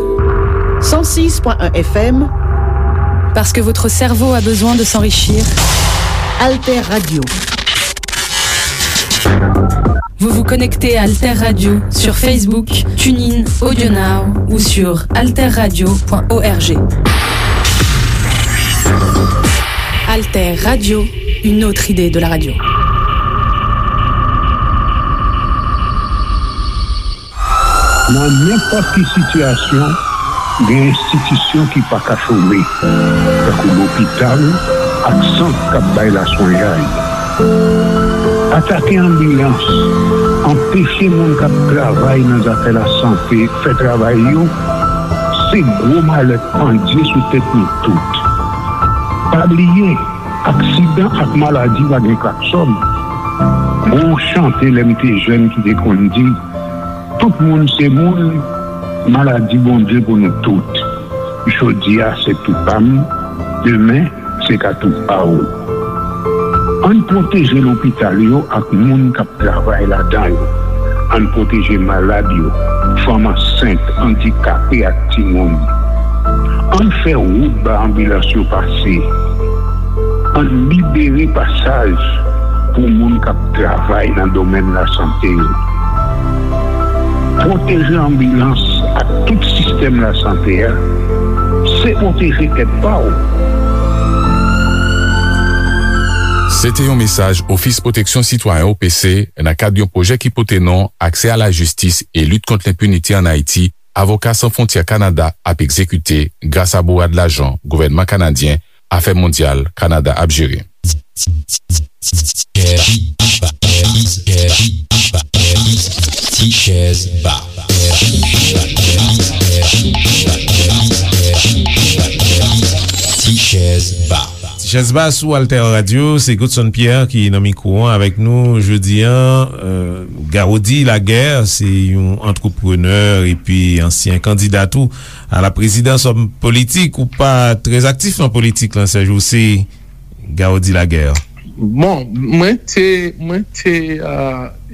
Cent six point un F M. Parce que votre cerveau a besoin de s'enrichir. Alter Radio. Vous vous connectez à Alter Radio sur Facebook, TuneIn, AudioNow ou sur alter radio point org. Alter Radio, une autre idée de la radio. Nan nenpòt ki sitiyasyon, gen enstitisyon ki pa ka chome, tankou lopital ak sant k ap bay laswenyay. Atake anbilans, anpeche moun k ap travay nan zafè lasante fè travay yo, se gwo malè k pandye sou tèt nou tout. Pa bliye, aksidan ak maladi pa gen klaksòn. Gon chante lè m te jèn ki te konn di, tout moun se moun, maladi Bondye pou nou tout. Jodi a se tou pa m, demen se ka tou pa w. Ann pwoteje lopital yo ak moun k ap travay ladan yo. Ann pwoteje malad yo, fanm ansent, andikape ak timoun. Ann fè wout ba anbilans yo pase. Ann libere pasaj pou moun k ap travay nan domèn lasante yo. Pwoteje anbilans ak tout sistèm lasante a, se pwoteje tèt pa w. Se te yon mesaj Ofis Pwoteksyon Sitwayen, O P C, nan kad yon pwojè ki pote non Aksè a la jistis e lit kont lenpinite ann Ayiti, Avoka San Fwontyè Kanada ap egzekite gras a bourad lajan gouvènman kanadyen Afè Mondyal Kanada ap jere. Ti chèz ba. Ti chèz ba. Ti chèz ba sou Alter Radio, se Godson Pierre ki nan mikwo an avèk nou jodi a. Garody Laguerre se yon antreprenè epi ansyen kandida tou a la prezidans, òm politik. Ou pa trè aktif nan politik lan, Serge, ou se Garody Laguerre? Bon, mwen te, mwen te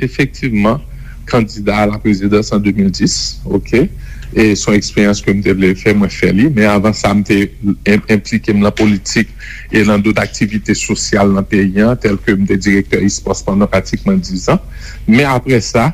efektivman kandida a la prezidans an de mil dis, oke? E se yon eksperyans ke m te vle fè, mwen fè li. Men avan sa, m te enplike m lan politik e lan dot aktivite sosyal nan peyi an, tèlke m te direktè Ispòs pandan pratikman diz an. Men apre sa,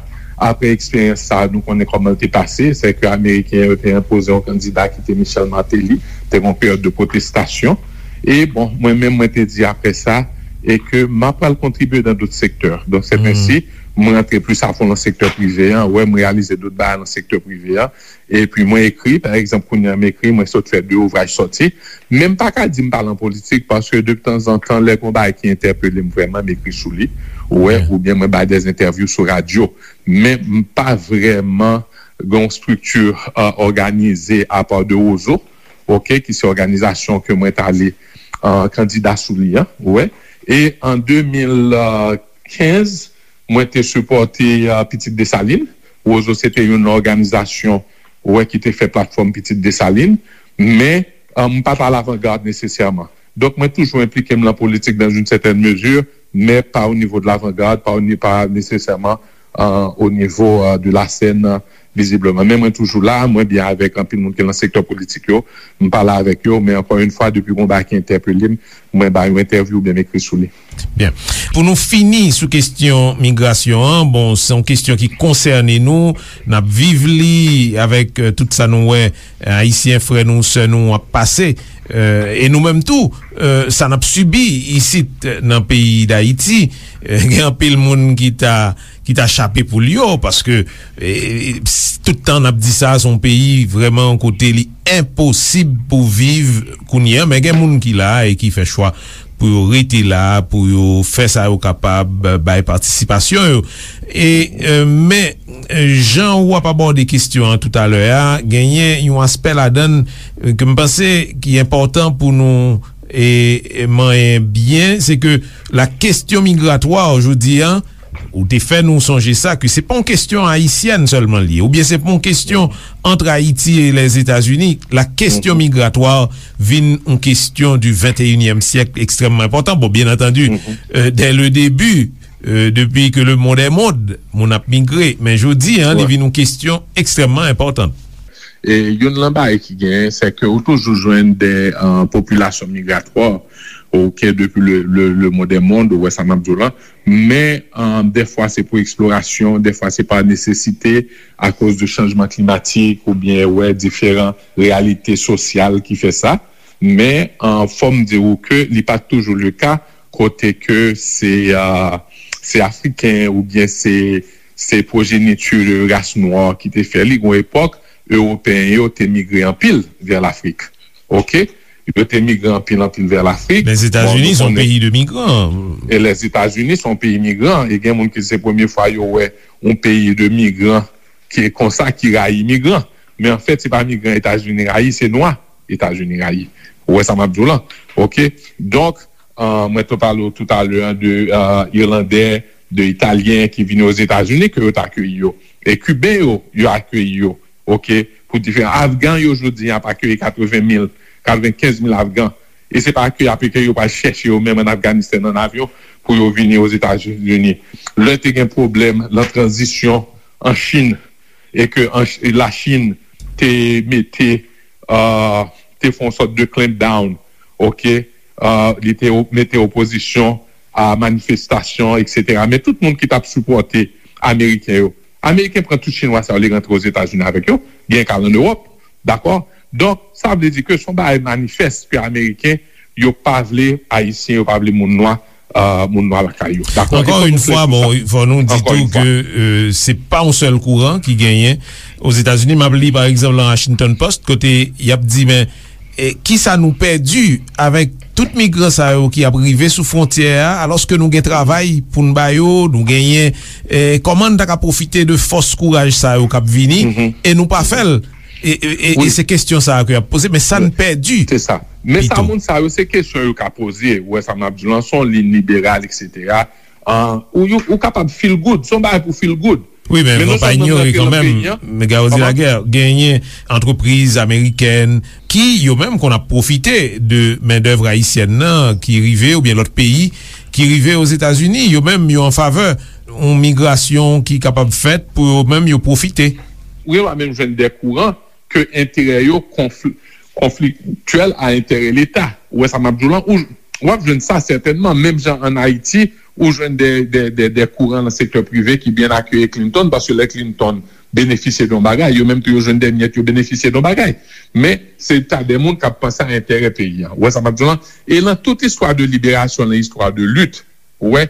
apre eksperyans sa, nou konnen kòman l te pase, se ke Ameriken yo te enpoze yon kandida ki te Michel Martelly, te gen yon peryòd de pwotestasyon. E bon, mwen menm, mwen te di apre sa, e ke m ap pral kontribye dan dot sektè. Donk, se ensi, mwen rantre plis afon lan sektè prive an, wè, m reyalize dot bagay lan sektè prive an. Epi mwen ekri, pa egzanp, kounye a m ekri, mwen sot fè de ouvraj sòti. Men m pa ka di m pa lan politik, paske de tanzantan, lè gon bagay ki entèpele m vrèman, m ekri sou li, ou wè, oubyen mwen bay dè entèvyou sou radyo. Men m pa vrèman gen yon estrikti òganize apa de Wozo, oke, ki se òganizasyon ke mwen t ale kandida sou li an, ou wè. E an de mil kenz, mwen te sipòte Pitit Desalin. Wozo se te yon òganizasyon, ou wè, ki te fè platfòm Pitit Desalin. Men, m pa t a lavangad nesesèman. Donk, mwen toujou enplike m lan politik dans une certaine mesure, men pa o nivo de lavangad, pa o ni-, pa nesesèman o nivo de la sèn, vizibleman. Men mwen toujou la, mwen byen avèk anpil moun ki lan sektè politik yo, m pale avèk yo, men ankò yon fwa, depi gon bagay ki entèpele m, mwen ba yon entèvyou oubyen m ekri sou li. Byen. Pou nou fini sou kesyon migrasyon an, bon, se yon kesyon ki konsène nou, n ap viv li avèk tout sa nou wè Ayisyen frè nou, sè nou ap pase, e nou menm tou, sa n ap sibi isit nan peyi Dayiti. Gen anpil moun ki ta ki ta chape poul yo, paske tout tan n ap di sa, se yon peyi vrèman kote li enposib pou viv kounye a, men gen moun ki la e ki fè chwa pou yo rete la, pou yo fè sa yo kapab, bay patisipasyon yo. E men jan w ap abòde kesyon an toutalè a, genyen yon aspè ladan l ke m panse ki enpòtan pou nou e manyen byen, se ke la kesyon migratwa jodi a, ou te fè nou sonje sa, ke se pa yon kesyon ayisyèn sèlman li ye, oubyen se pa yon kesyon ant Ayiti e Lèzetazini. La kesyon migratwa vin yon kesyon du venteyinyèm syèk ekstrèmman enpòtan. Bon, byen antandi, dè le debi, euh, depuis que le monde est monde, moun ap migre. Men jodi a, li vin yon kesyon ekstrèmman enpòtan. E youn nan bagay ki genyen, se ke ou toujou jwenn de euh, popilasyon migratwa, ok, depi le, le, le monde est monde, ou wè sa m ap di w la. Men euh, dèfwa se pou eksplorasyon, dèfwa se pa nesesite, akoz de chanjman klimatik oubyen wè diferan reyalite sosyal ki fè sa. Men euh, fò m di w ke li pa toujou le ka, kote ke se euh, se Afriken oubyen se se pwojeniti de ras nwa ki te fè li. Gon epòk, Ewopeyen yo te migre anpil vè Lafrik. Ok? Yo te migre anpil, anpil vè Lafrik. Lèzetazini se yon peyi de migran. E Lèzetazini se yon peyi migran. E gen moun ki se premye fwa yo wè yon peyi de migran ki konsa, ki rayi migran. Men anfèt, se pa migran Etazini rayi, se nwa Etazini rayi. Ou wè sa m ap di w lan? Ok? Donk, euh, mwen te pale w toutalè de euh, Irlandè, de Italyen ki vini Ozetazini, ke yo t akeyi yo. E Kiben yo, yo akeyi yo. Ok? Pou diferan Afgan yo, jodi a, ap akeyi katreven mil, katrevenkenz mil Afgan. E se pa ke y ap ke yo pral chèche yo menm ann Afganistan ann avyon pou yo vini Ozetazini. Lè te gen pwoblèm lan tranzisyon an Chin, e ke an Ch- Lachin te mete, euh, te fè yon sòt de clampdown, ok, euh, li te o- mete opozisyon a manifestasyon, et cetera. Men tout moun ki t ap sipòte Ameriken yo, Ameriken pran tout Chinwa sa yo, li rantre Ozetazini avèk yo, gen ka l ann Ewòp, dakò? Donk, sa vle di ke se yon bagay manifès ke Ameriken yo pa vle Ayisyen, yo pa vle moun nwa, euh, moun nwa lakay yo. Dakò? Ankò yon fwa, bon, fò nou di tou ke euh, se pa yon sèl kouran ki genyen Ozetazini. M ap li, pa egzanp, lan Washington Post, kote y ap di, men, e, kisa nou pèdi avèk tout migran sa yo ki ap rive sou fwontyè a, alòske nou gen travay pou n ba yo, nou genyen, e, kòman n ta ka pwofite de fòs kouraj sa yo k ap vini, e nou pa fè l? E, e, e, e se kesyon sa a ke y ap poze, men sa n pèdi. Se sa. Men sa moun sa yo, se kesyon yo ka poze. Ou wè sa m ap di w lan, se yon liy liberal, et cetera. An, ou, ou, ou kapab feel good. Se yon bagay pou feel good. Wi, men fò pa inyore kanmenm, Garozi Laguerre, genyen antrepriz amerikèn ki, yo menm, konn ap pwofite de mendèv ayisyèn nan ki rive, oubyen lòt peyi ki rive Ozetazini. Yo menm, yo an favè yon migrasyon ki kapab fèt pou yo menm, yo pwofite. Wi, w a menm jwenn de kouran ke enterè yo konfli- konfliktyèl a enterè Leta. Ou wè sa m ap di w lan? Ou, w ap jwenn sa sètènman. Menm jan ann Ayiti, ou jwenn de, de, de, de kouran nan sektè prive ki byen akeyi Clinton, paske lè Clinton benefisye de yon bagay, yo menm tou yo jwenn de myèt, yo benefisye de yon bagay. Men, se ta de moun k ap panse a enterè peyi a. Ou wè sa m ap di w lan? E lan tout istwa de liberasyon, lan istwa de lit, ou wè,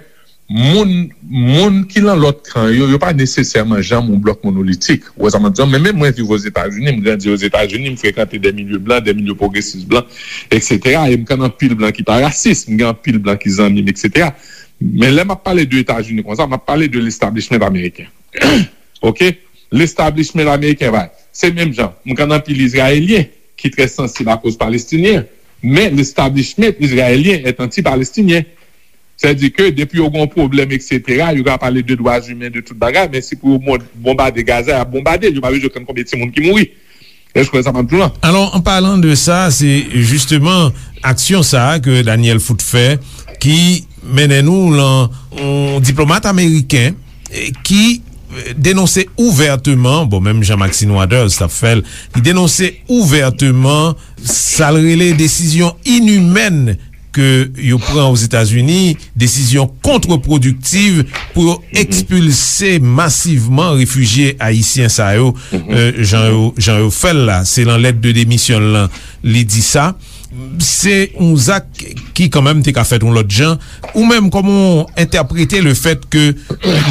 moun, moun ki lan lòt kan yo, yo pa nesesèman janm yon blòk monolitik. Ou wè sa m ap di w? Men menm mwen viv Ozetazini, m grandi Ozetazini, m frekante de milye blan, de milye pwogresis blan, et cetera. E m konn anpil blan ki pa rasis, m gen anpil blan ki zanmi m, et cetera. Men lè m ap pale de Etazini konsa, m ap pale de lestablishment ameriken. Ok? Lestablishment ameriken va. Se menm jan. M konn anpil Izrayelyen ki trè sansib akoz Palestinyen. Men lestablishment izrayelyen est anti-palestinien. Sètadi ke depi yo gen yon pwoblèm, et cetera, yo ka pale de dwa imen, de tout bagay, men si pou yo bon- bonbade Gaza, y ap bonbade l. Yo pa bezwen konn konbyen timoun ki mouri. Èske w wè sa m ap di w lan? Alò, an palan de sa, se jisteman aksyon sa a ke Daniel Foote fè ki mennen nou lan yon diplomat ameriken, eh, ki, eh, denonse ouvèteman, bon, menm jan Maxine Waters t ap fè l, li denonse ouvèteman sa l rele desizyon inimèn ke yo pran Ozetazini, desizyon kontrepwodiktiv pou yo ekspilse masivman refijye ayisyen sa yo, eh, jan yo, jan yo fè l la. Se lan lèt de demisyon l lan, li di sa. Se yon zak ki kanmenm te ka fèt yon lòt jan. Ou menm, kòman w entèprete le fèt ke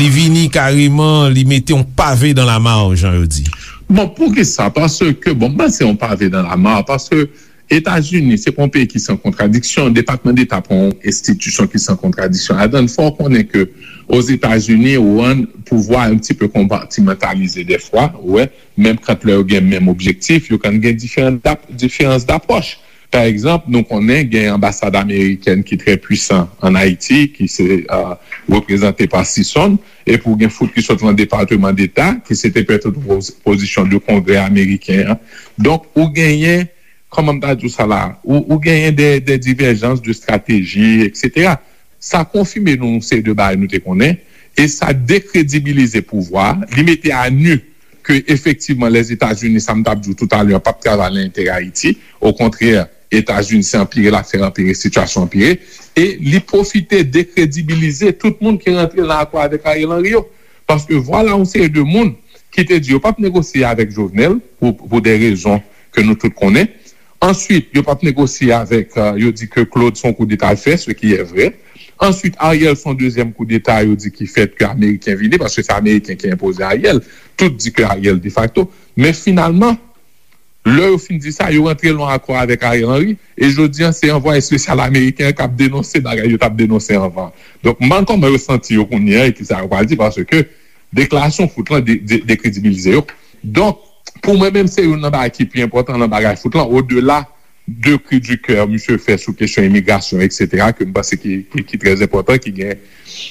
li vini kareman, li mete yon pave dan la mar, jan yo di? Bon, poukisa? Paske, bon, m panse yon pave dan la mar, paske Etazini, se pa yon peyi ki san kontradiksyon. Depatman Deta pa yon enstitisyon ki san kontradiksyon. Adan, fò w konnen ke Ozetazini, ou an, pouvwa yon ti pe konpatimantalize dèfwa, ou wè, menm kan lè yo gen menm objektif, yo konn gen diferan dap- diferans dapwòch. Pa egzanp, nou konnen gen anbasad amerikèn ki trè pwisan ann Ayiti, ki se, euh, reprezante pa Sison, epi w gen Foote ki sot lan Depatman Deta, ki se te pètèt yon poz- pozisyon de Kongrè ameriken an. Donk, ou genyen, kòman m ta di w sa la, ou, ou genyen de, de diverjans de strateji, et cetera. Sa konfime nou yon seri de bagay nou te konnen, e sa dekredibilize pouvwa a, li mete a nu ke efektivman Lèzetazini, sa m t ap di w toutalè, p ap travay nan enterè Ayiti. Okontrè, Etazini se anpire l ap fè anpire, sitiyasyon anpire, e li pwofite dekredibilize tout moun ki rantre nan akò avèk Ariel Henry yo. Paske vwala yon seri de moun ki te di yo p ap negosye avèk Jovenel pou, pou de rezon ke nou tout konnen. Answit, yo p ap negosye avèk, euh, yo di ke Claude se yon koudeta l fè, ce qui est vrai. Answit, Ariel se yon dezyèm koudeta, yo di ki fèt ke Ameriken vini, paske se Ameriken ki enpoze Ariel. Tout di ke Ariel defakto. Men finalman, lè yo fin di sa, yo rantre nan akò avèk Ariel Henry, e jodi a, se anvwaye espesyal ameriken an k ap denonse bagay yo t ap denonse anvan. Donk, m pa konn kòman yo santi yo kounye a e ki sa yo pral di, paske deklarasyon Foot lan de, de, dekredibilize yo. Donk, pou mwen menm, se youn nan bagay ki pi enpòtan nan bagay Foot lan, odela de cri du cœur misye fè sou kesyon imigrasyon, etsetera, ke m panse ki, ki, ki trè enpòtan, ki gen,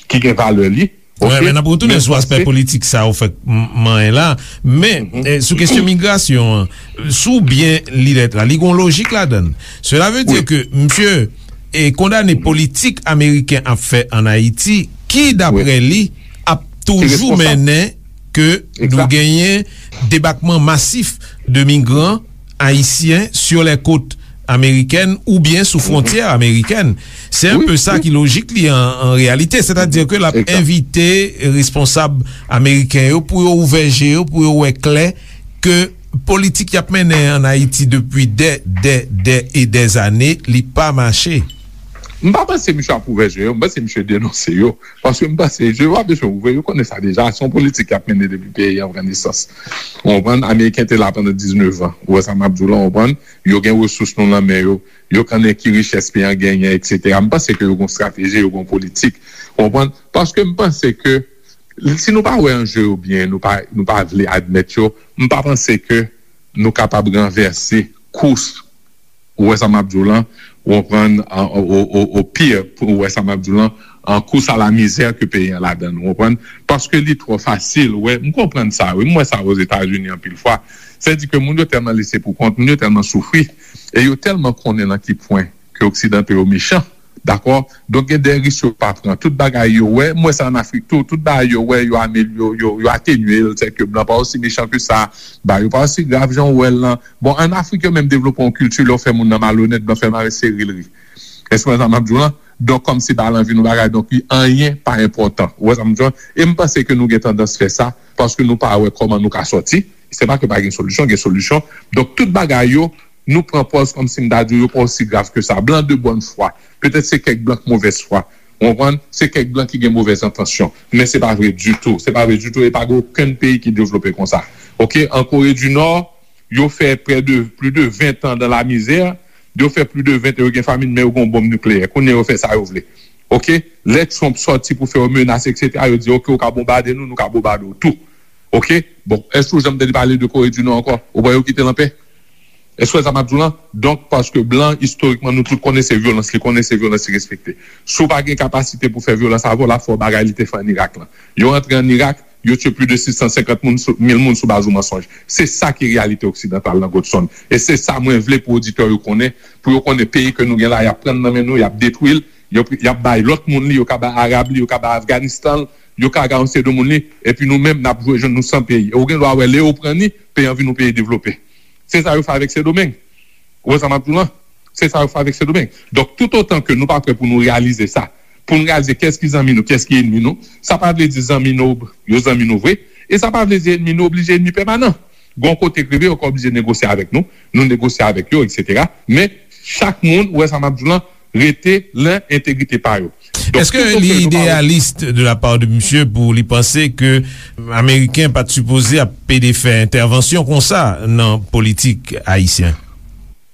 ki gen valè li. Wi, men n ap retounen sou aspè politik sa ou fèk manyen la. Men, eh, sou kesyon migrasyon an, si w byen li lèt la, li gen yon lojik ladan l. Cela veut dire que misye e kondane politik ameriken ap fè ann Ayiti, ki, daprè li, ap toujou mennen ke nou genyen debakman masif de migran ayisyen sur les côtes américaines oubyen sou fwontyè amerikèn. Se un peu sa ki lojik li an, an reyalite. Sètadi ke l ap envite responsab ameriken yo pou yo ouvè je yo, pou yo wè klè ke politik y ap mennen ann Ayiti depi dè, dè, dè e dè zane, li pa mache. M pa panse misye ap ouvè je yo, m panse misye denonse yo. Paske m panse je yo pa bezwen ouvè, yo konnen sa deja. Se yon politik y ap mennen depi peyi an pran nesans. Ou konprann? Ameriken te la pandan diznèf an. Ou wè sa m ap di w la, ou konprann? Yo gen resous nou nan men yo. Yo konnen ki richès peyi an genyen, etsetera. M panse ke yo gen yon estrateji, yo gen yon politik. Ou konprann? Paske m panse ke si nou pa wè anje yo byen, nou pa, nou pa vle admèt yo, m pa panse ke nou kapab ranvèse kous, ou wè sa m ap di w lan, ou konprann, o, o, o, o pire, ou wè sa m ap di w lan, an kous a la mizè ke peyi an ladan l, ou konprann? Paske li twò fasil, ou wè, m konprann sa, wi, m wè sa Ozetazini anpil fwa. Sètadi ke moun yo tèlman lese pou kont, moun yo tèlman soufri, e yo tèlman konnen nan ki pwen ke oksidanto yo mechan, dakò? Donk, gen de risk yo pa pran. Tout bagay yo wè, m wè sa ann Afrik tou, tout bagay yo wè, yo amel-, yo, yo, yo atenye l, sètadi ke blan pa osi mechan ke sa, bagay yo pa osi grav jan w wè l lan. Bon, ann Afrik, yo menm devlope yon kilti, lè w fè moun nan malonèt, blan fè mare sere l ri. Èske w wè sa m ap di w lan? Donk, kòmsi pa l anvi nou bagay, donk, li anyen pa enpòtan. Ou wè sa m ap di w lan? E m panse ke nou gen tandans fè sa, paske nou pa wè kòman nou ka sòti. Se pa ke pa gen solisyon, gen solisyon. Donk, tout bagay yo, nou pran pòz kòmsi m ta di w yo pa osi grav ke sa. Blan de bòn fwa. Petèt se kèk blan k movèz fwa. Ou konprann? Se kèk blan ki gen movèz entansyon. Men se pa vre ditou. Se pa vre ditou. E pa gen okenn peyi ki devlope konsa. Oke? An Kore di Nò, yo fè prè de, plis de ven tan dan la mizè. Yo fè plis de ven tan, yo gen famin, men yo gen yon bonm nikleyè. Kounye a, yo fè sa yo vle. Oke? Lè Trump sòti pou fè yo menas, etsetera, yo di, oke, ou ka bonbade nou, nou ka bonbade w tou. Oke? Bon, èske w janm tande pale de Kore di Nò ankò? Ou wè yo kite l anpè? Èske w wè sa m ap di w lan? Donk, paske blan, istorikman, nou tout konnen se vyolans li konnen, se vyolans li respekte. Si w pa gen kapasite pou fè vyolans avè w, l ap fè w bagay li te fè ann Irak lan. Yo rantre ann Irak, yo tiye plis de sis san senkant moun sou, mil moun sou baz yon mansonj. Se sa ki reyalite oksidantal nan Godsonn. E se sa mwen vle pou oditè yo konnen, pou yo konnen peyi ke nou gen la, y ap pran nan men nou, y ap detwi l, y ap, y ap bay lòt moun li, yo ka bay Arab li, yo ka bay Afganistan l, yo ka bay yon seri de moun li, epi nou menm, n ap jwenn nou san peyi. E ou gen dwa wè, lè yo pran ni, peyi an vin yon peyi devlope. Se sa yo fè avèk Sendomeng. Ou wè sa m ap di w lan? Se sa yo fè avèk Sendomeng. Donk, toutotan ke nou pa prè pou nou reyalize sa, pou nou reyalize kiyès ki zanmi nou, kiyès ki ènmi nou, sa pa vle di zanmi nou, yo zanmi nou vre, e sa pa vle di ènmi nou oblije ènmi pèmanan. Gon kote k rive, yo ka oblije negosye avèk nou, nou negosye avèk yo, etsetera. Men, chak moun, ou wè sa m ap di w lan, rete nan entegrite pa yo. Donk, èske li ideyalis de la part de misye pou li panse ke Ameriken pa t sipoze ap pede fè entèvansyon konsa nan politik ayisyen?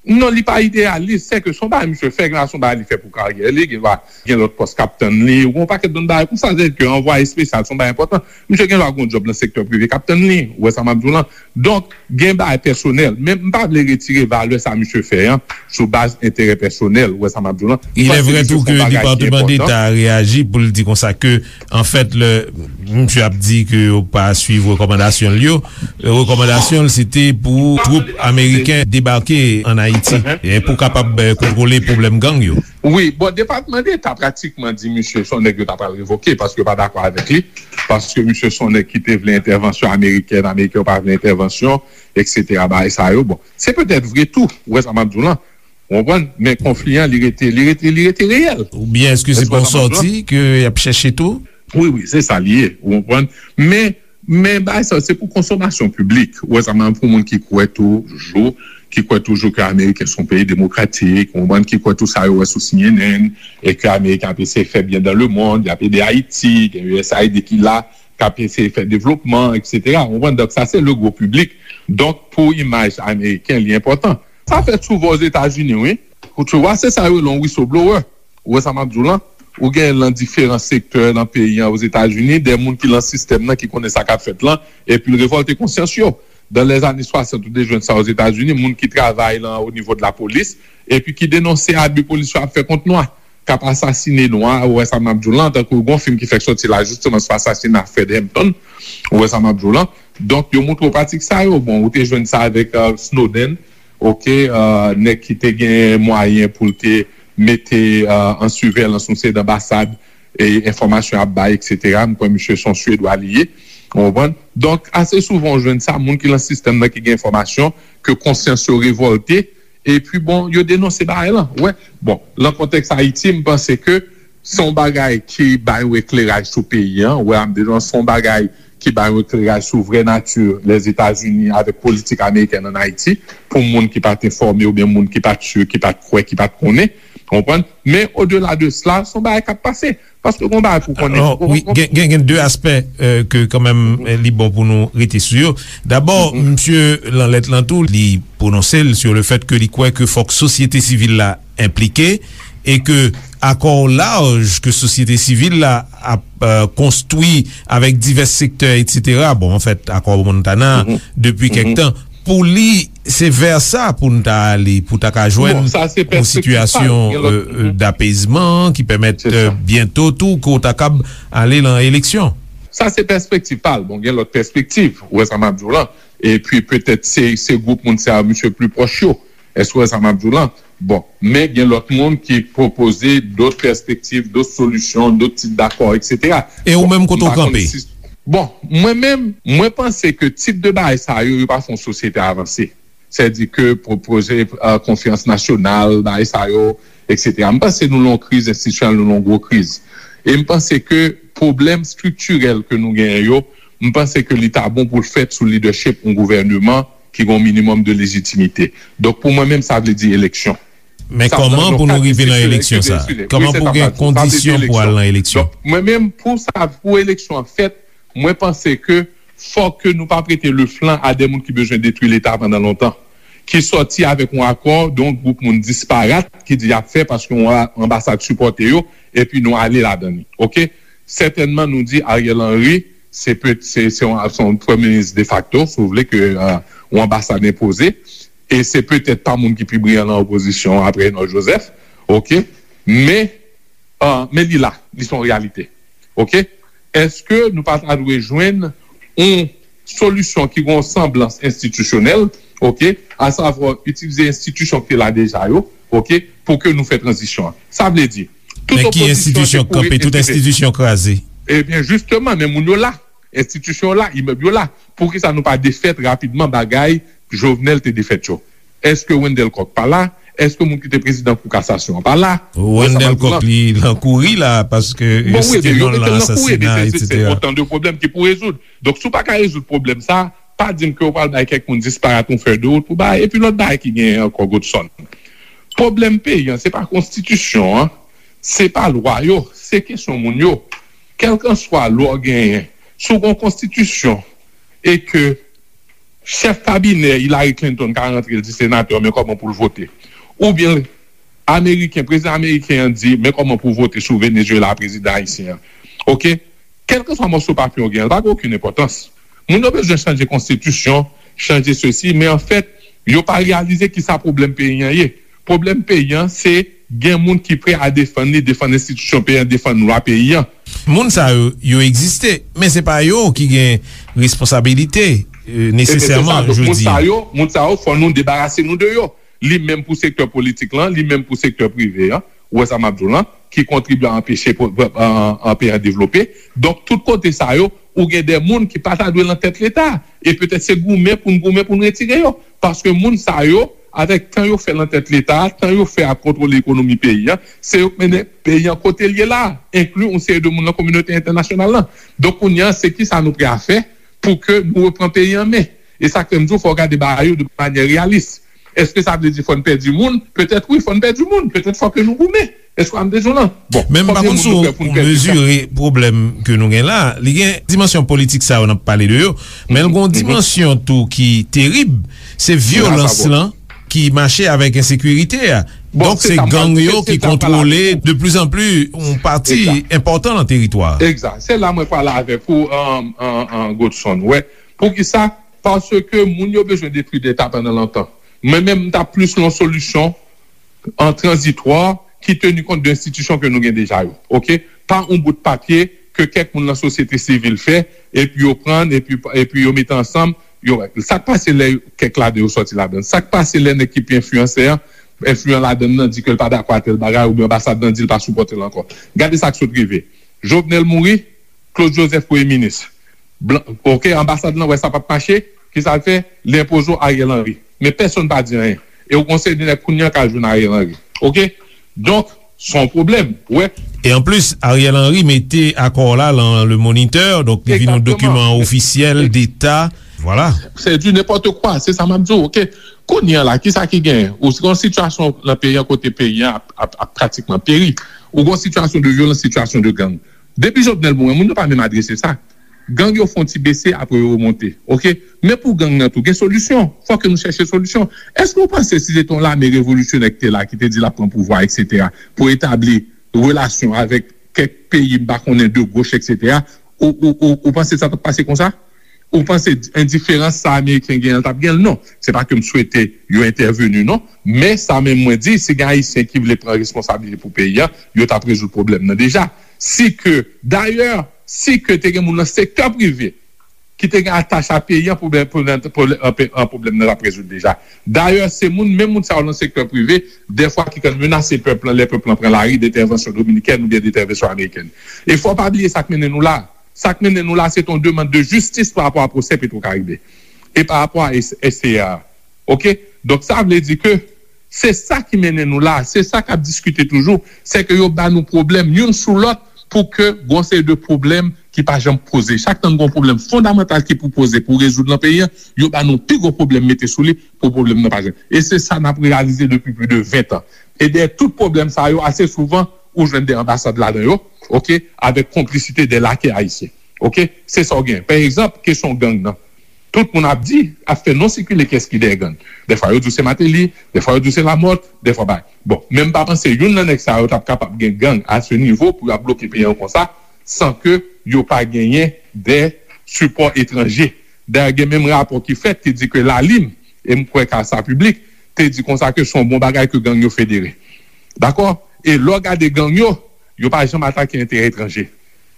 Non, li pa ideyalis, se ke se yon bagay misye fè, gen dwa se yon bagay li fè pou karyè li, gen dwa gen lòt pòs k ap tann li, ou gen yon pakèt lòt bagay konsa, se ke anvwaye espesyal, se yon bagay enpòtan. Misye gen dwa gen yon djòb nan sektè prive k ap tann li, ou wè sa m ap di w lan. Donk, gen bagay pèsonèl, men m pa vle retire valè sa misye fè an sou baz enterè pèsonèl, ou wè sa m ap di w lan. Il est vrai tou ke Departman Deta reyaji pou l di konsa ke, anfèt, le Misye ap di ke yo pa swiv rekòmandasyon l yo. Rekòmandasyon l se te pou twoup ameriken debake ann Ayiti e pou kapab kontwole pwoblèm gang yo. Wi, bon, Depatman Deta pratikman di misye se yon nèg yo ta pral revoke paske yo pa dakò avèk li, paske misye se yon nèg ki te vle entèvansyon amerikèn, ameriken yo pa vle entèvansyon, eksetera, bagay sa yo. Bon, se petèt vre tou, ou wè sa m ap di w lan, ou konprann, men konfli an, li rete, li rete, li rete reyèl. Oubyen èske se pa yon sòti ke y ap chèche tou? Wi, wi, se sa li ye, ou konprann. Men, men bagay sa yo, se pou konsomasyon piblik. Ou wè sa, men pou moun ki kwè toujou, ki kwè toujou ke Ameriken se yon peyi demokratik, ou konprann, ki kwè tou sa yo wè sou C N N, e ke Ameriken ap eseye fè byen dans le monde, y ap ede Ayiti, gen U S A I D ki la, k ap eseye fè devlopman, eksetera. Ou konprann, donk sa se le gwo piblik. Donk, pou imaj Ameriken, li enpòtan. Sa fèt souvan Ozetazini, wi. Ou, tu vois, se sa yo rele yon whistleblower. Ou wè sa m ap di w lan? Ou gen nan diferan sektè nan peyi an Ozetazini, de moun ki lan sistèm nan, ki konnen sa k ap fèt lan, epi l revòlte konsyans yo. Dan lèzane swasant, ou te jwenn sa Ozetazini, moun ki travay lan o nivo de lapolis, epi ki denonse abi polis yo ap fè kont nwa, k ap asasine nwa, ou wè sa m ap di w lan, tankou gon fim ki fèk sòti la, jisteman, sou asasina Fred Hampton, ou wè sa m ap di w lan. Donk, yo montre w pratik sa yo. Bon, ou te jwenn sa avèk Snowden, oke, nèg ki te gen mwayen pou l te mete an siveyans yon seri d anbasad, e enfòmasyon ap bay, eksetera. M kwè misye se yon Swedwa li ye. Ou konprann? Donk, ase souvan ou jwenn sa, moun ki lan sistèm nan ki gen enfòmasyon, ke konsyans yo revòlte, epi bon, yo denonse bagay lan. Ou wè? Bon, lan kontèks Ayiti, m panse ke se yon bagay ki bay yon ekleraj sou peyi an. Ou wè, m deja se yon bagay ki bay yon ekleraj sou vrè nati Lèzetazini avèk politik amerikèn ann Ayiti, pou moun ki pa t enfòme oubyen moun ki pa t si, ki pa t kwè, ki pa t konnen. Ou konprann? Men odela de sela, se yon bagay k ap pase. Paske gon bagay pou konnen. Wi, gen, gen, gen de aspè ke kanmenm li bon pou nou rete sou yo. Dabò, misye lan lèt lan tou, li pwononse l sou le fèt ke li kwè ke fòk sosyete sivil la enplike e ke akò laj ke sosyete sivil la ap konstwi avèk divès sektè, etsetera. Bon, anfèt, akò Montana, depi kèk tan, pou li, se vè sa pou n ta ale, pou ta ka jwenn yon sitiyasyon dapezman ki pèmèt byento tou ke w ta kab ale lan eleksyon. Sa se pèspektiv pa l. Bon, gen lòt pèspektiv, ou wè sa m ap di w lan. Epi petèt se, se gwoup moun sa yo, misye pli pwòch yo. Èske w wè sa m ap di w lan? Bon, men gen lòt moun ki pwopoze dòt pèspektiv, dòt solisyon, dòt tip dakò, eksetera. E ou menm, kote w kanpe? Bon, mwen menm, mwen panse ke tip de bagay sa yo, yo pa fè yon sosyete avanse. Sètadi ke pwopoze konferans nasyonal, bagay sa yo, eksetera. M panse nou lan yon kriz enstitisyonèl, nou lan yon gwo kriz. E m panse ke pwoblèm estriktirèl ke nou genyen yo, m panse ke li ta bon pou l fèt sou lidèchip yon gouvèneman ki gen yon minimòm de lejitimite. Donk, pou mwen menm, sa vle di eleksyon. Men kòman pou nou rive nan eleksyon sa? Kòman pou gen kondisyon pou al nan eleksyon? Donk, mwen menm, pou sa, pou eleksyon an fèt, mwen panse ke fòk ke nou pa prete le flanc a de moun ki bezwen detwi Leta pandan lontan, ki sòti avèk yon akò de yon gwoup moun disparat ki di y ap fè paske yon anbasad sipòte yo, epi nou ale ladan li. Oke? Sètènman, nou di Ariel Henry, se pe, se, se yon, se yon premye minis defakto, si w vle, ke yon anbasad enpoze. E se petèt pa moun ki pi briyan nan opozisyon an apre Reynold Joseph. Oke? Men, men li la, li se yon reyalite. Oke? Èske nou pa ta dwe jwenn yon solisyon ki gen yon sanblans enstitisyonèl, oke, asavwa itilize enstitisyon ki te la deja yo, oke, pou ke nou fè tranzisyon an? Sa vle di, tout opozisyon an te kouri enstiti- Men ki enstitisyon k kanpe, tout enstitisyon kraze? Ebyen, jisteman, men moun yo la. Enstitisyon yo la, imèb yo la. Poukisa nou pa defèt rapidman bagay Jovenel te defèt yo? Èske Wendelle Coq pa la? Èske moun ki te prezidan Kou Kasasyon an pa la? Wendelle Coq, li lan kouri la, paske yo site non l lan asasina, etsetera. Otan de pwoblèm ki pou rezoud. Donk, si w pa ka rezoud pwoblèm sa, pa di m ke w pral bay kèk moun disparat yon fèy de wout pou bay, epi lòt bagay ki genyen ankò, Godson. Pwoblèm peyi an, se pa konstitisyon an, se pa lwa yo, se kesyon moun yo. Kèlkanswa lwa w genyen, si w gen yon konstitisyon e ke chèf kabinè Hillary Clinton ka rantre, l di senatè, men kòman pou l vote. Oubyen Ameriken, prezidan ameriken an di, men kòman pou vote sou Venezuela, prezidan ayisyen an. Oke? Kèlkanswa mòso papye w gen an, l pa gen okenn enpòtans. Moun yo bezwen chanje konstitisyon, chanje sesi, men anfèt, yo pa reyalize kisa pwoblèm peyi an ye. Pwoblèm peyi an, se gen moun ki prè a defann li, defann enstitisyon peyi an, defann lwa peyi an. Moun sa yo, yo egziste, men se pa yo ki gen responsabilite, e, e, men se sa, nesesèman, donk, moun jodi sa a. Yo, moun sa yo, fò nou debarase nou de yo. Li menm pou sektè politik lan, li menm pou sektè prive an, ou wè sa m ap di w lan, ki kontribye a anpeche po-, an, an peyi an devlope. Donk, tout kote sa yo, ou gen de moun ki pa ta dwe nan tèt Leta. E petèt se goumen pou n goumen pou n retire yo. Paske moun sa yo, avèk tan yo fè nan tèt Leta, tan yo fè ap kontwole ekonomi peyi an, se yo k mennen peyi an kote l ye la, enkli yon seri de moun nan kominote entènasyonal lan. Donk, kounye a, se kisa nou prè a fè pou ke nou repran peyi an men? E sa k fè m di w, fò w gade bagay yo de manyè reyalis. Èske sa vle di fò n pèdi moun? Petèt wi, fò n pèdi moun. Petèt fò ke nou goumen. Èske w ap bezwen lan? Bon, men m pa konbyen konn moun si nou w prè pou n pèdi sa? Mezire pwoblèm ke nou gen la. Li gen dimansyon politik sa yo n ap pale de yo, men l gen yon dimansyon tou ki terib, se vyolans lan ki mache avèk ensekirite a. Bon, donk, se gang yo ki kontwole de plus en plus yon pati enpòtan nan teritwa a. Egzak. Se la mwen prale avèk ou, an, an, an, Godson. Wè, poukisa? Paske moun yo bezwen detwi Leta pandan lontan. Mwen menm, m ta plis lan solisyon an tranzitwa ki teni kont de enstitisyon ke nou gen deja yo. Oke? Pa yon bout papye ke kèk moun nan sosyete sivil fè, epi yo pran, epi, epi yo mete ansanm, yo, sa k pase lè kèk ladan yo sòti ladan? Sa k pase lè nèg ki pi enfliyansè an, enfliyan ladan nan, di ke l pa dakò a tèl bagay, oubyen anbasad lan di l pa sipòte l ankò? Gade sa k sot rive. Jovenel mouri, Claude Joseph premye minis. Blan, oke, anbasad lan wè sa p ap mache, kisa l fè? Li enpoze w Ariel Henry. Men pèsonn pa di anyen. E w gon seri de nèg kounye a k al jwenn Ariel Henry. Oke? Donk, se yon pwoblèm, ou wè. E anplis, Ariel Henry mete akò la lan Le Moniteur, donk li vin yon dokiman ofisyèl deta. Vwala. Se di nenpòt kwa, se sa m ap di w, oke? Kounye a la, kisa ki genyen? Ou gon sitiyasyon lan peyi an kote peyi an ap, ap, ap pratikman peri. Ou gon sitiyasyon de vyolans, sitiyasyon de gang. Depi Jovenel mouri, moun yo pa menm adrese sa. Gang yo fè yon ti bese, apre yo remonte. Oke? Men pou gang nan tou, gen solisyon. Fò ke nou chèche solisyon. Èske w panse si se te yon lame revolisyonè ki te la, ki te di l ap pran pouvwa, etsetera, pou etabli relasyon avèk kèk peyi, m pa konnen, de goch, etsetera, ou, ou, ou, ou panse sa t ap pase konsa? Ou panse endiferans sa Ameriken genyen an t ap gen l? Non. Se pa ke m swete yo entèveni, non. Men sa menm mwen di, si gen Ayisyen ki vle pran responsablite pou peyi a, yo t ap rezoud pwoblèm nan deja. Si ke, dayè, si ke te gen moun nan sektè prive ki te gen atach a peyi an, pwoblèm, pwoblèm, pwoblèm, an, an pwoblèm nan t ap rezoud deja. Dayè, se moun, menm moun sa yo nan sektè prive, dèfwa ki konn menase pèp lan, lè pèp lan pran lari, de entèvansyon dominikèn oubyen de entèvansyon amerikèn. E fò w pa bliye sa k mennen nou la. Sa k mennen nou la, se te yon demann de jistis pa rapò a pwosè Petwokaribe e pa rapò a S-, S C A. Oke? Donk, sa vle di ke se sa ki mennen nou la, se sa k ap diskite toujou, se ke yo ba nou pwoblèm youn sou lòt pou ke gon seri de pwoblèm ki pa janm poze. Chak tan n gon pwoblèm fondamantal ki pou poze, pou rezoud nan peyi an, yo ba nou pi gwo pwoblèm mete sou li pou pwoblèm nan pa janm. E se sa n ap reyalize depi plis de ven tan. E dèyè tout pwoblèm sa yo, ase souvan, ou jwenn de anbasad ladan yo, oke, avèk konplisite de lakè ayisyen. Oke? Se sa w gen. Pa egzanp, kesyon gang nan. Tout moun ap di, ap fè non sikile kiyès ki dèyè gang. Dèfwa yo di w se Martelly, dèfwa yo di w se Lamothe, dèfwa bay. Bon, men m pa panse youn nan nèg sa yo t ap kapab gen gang a se nivo pou y ap bloke peyi an konsa, san ke yo pa genyen de sipò etranje. Dayè, gen menm rapò ki fèt ki di ke Lalim, e m kwè ka sa piblik, te di konsa ke se yon bon bagay ke gang yo federe. Dakò? E lè w gade gang yo, yo pa janm atake enterè etranje.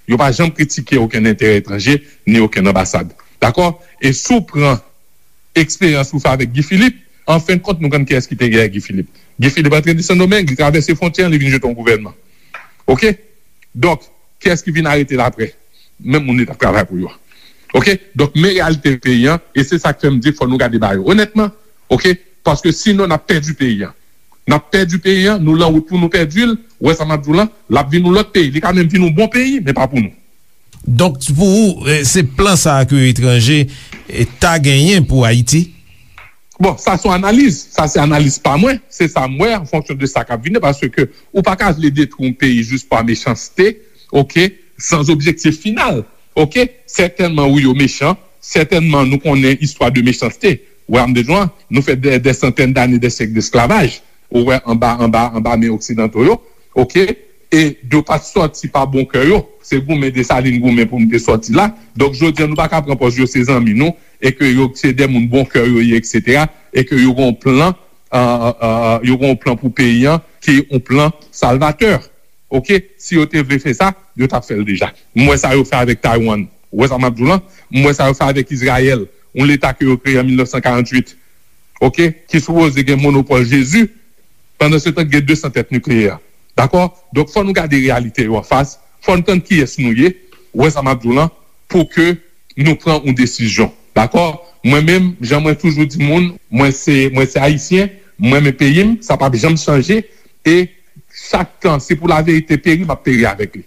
Yo pa janm kritike okenn enterè etranje, ni okenn anbasad. Dakò? E si w pran eksperyans ou fè avèk Guy Philippe, an fen de kont, nou konn kiyès ki te dèyè Guy Philippe. Guy Philippe antre de Sendomeng, li travèse fwontyè an, li vin jete yon gouvènman. Oke? Donk, kiyès ki vin arete l apre? Menm moun li t ap travay pou yo. Oke? Donk, men reyalite peyi an, e se sa k fè m di fò nou gade bagay yo onètman, oke? Paske sinon, n ap pèdi peyi an. N ap pèdi peyi an, nou lan wout pou nou pèdi l, ou wè sa m ap di w lan, l ap vin yon lòt peyi. Li ka menm vin yon bon peyi, men pa pou nou. Donk, pou ou, eh, se plan sa a ke etranje, eh, ta genyen pou Ayiti? Bon, sa se yon analiz. Sa se analiz pa mwen. Se sa m wè an fonksyon de sa k ap vini, paske ou pa ka vle detwi yon peyi jis pa mechanste, oke, san objektif final. Oke? Sètènman, wi, yo mechan. Sètènman, nou konnen istwa de mechanste. Ou wè, m de jwenn, nou fè dè, dè santèn dane, dè syèk desklavaj. Ou wè, anba, anba, anba men oksidanto yo. Oke? E yo pa t sòti pa bon kè yo. Se goumen Desalin goumen pou nou te sòti la. Donk, jodi a, nou pa ka pran pòz yo se zanmi nou, e ke yo se de moun bon kè yo ye, etsetera, e ke yo gen yon plan, euh, euh, yo gen yon plan pou peyi an, ki yon plan salvatè. Oke, si yo te vle fè sa, yo t ap fè l deja. M wè sa yo fè avèk Taiwan. Ou wè sa m ap di w lan? M wè sa yo fè avèk Izrayèl, yon leta ke yo kreye an mil nèf san karanntuit. Oke, ki sipoze gen monopòl Jezi, pandan se tan gen de san tèt nikleyè. Dakò? Donk, fò nou gade reyalite yo anfas, fò n tann kiyès nou ye, ou wè sa m ap di w lan, pou ke nou pran yon desizyon. Dakò? Mwen menm, jan mwen toujou di moun, mwen se, mwen se Ayisyen, mwen renmen peyi m, sa p ap janm chanje, e chak tan, se pou laverite peri, m ap peri avèk li.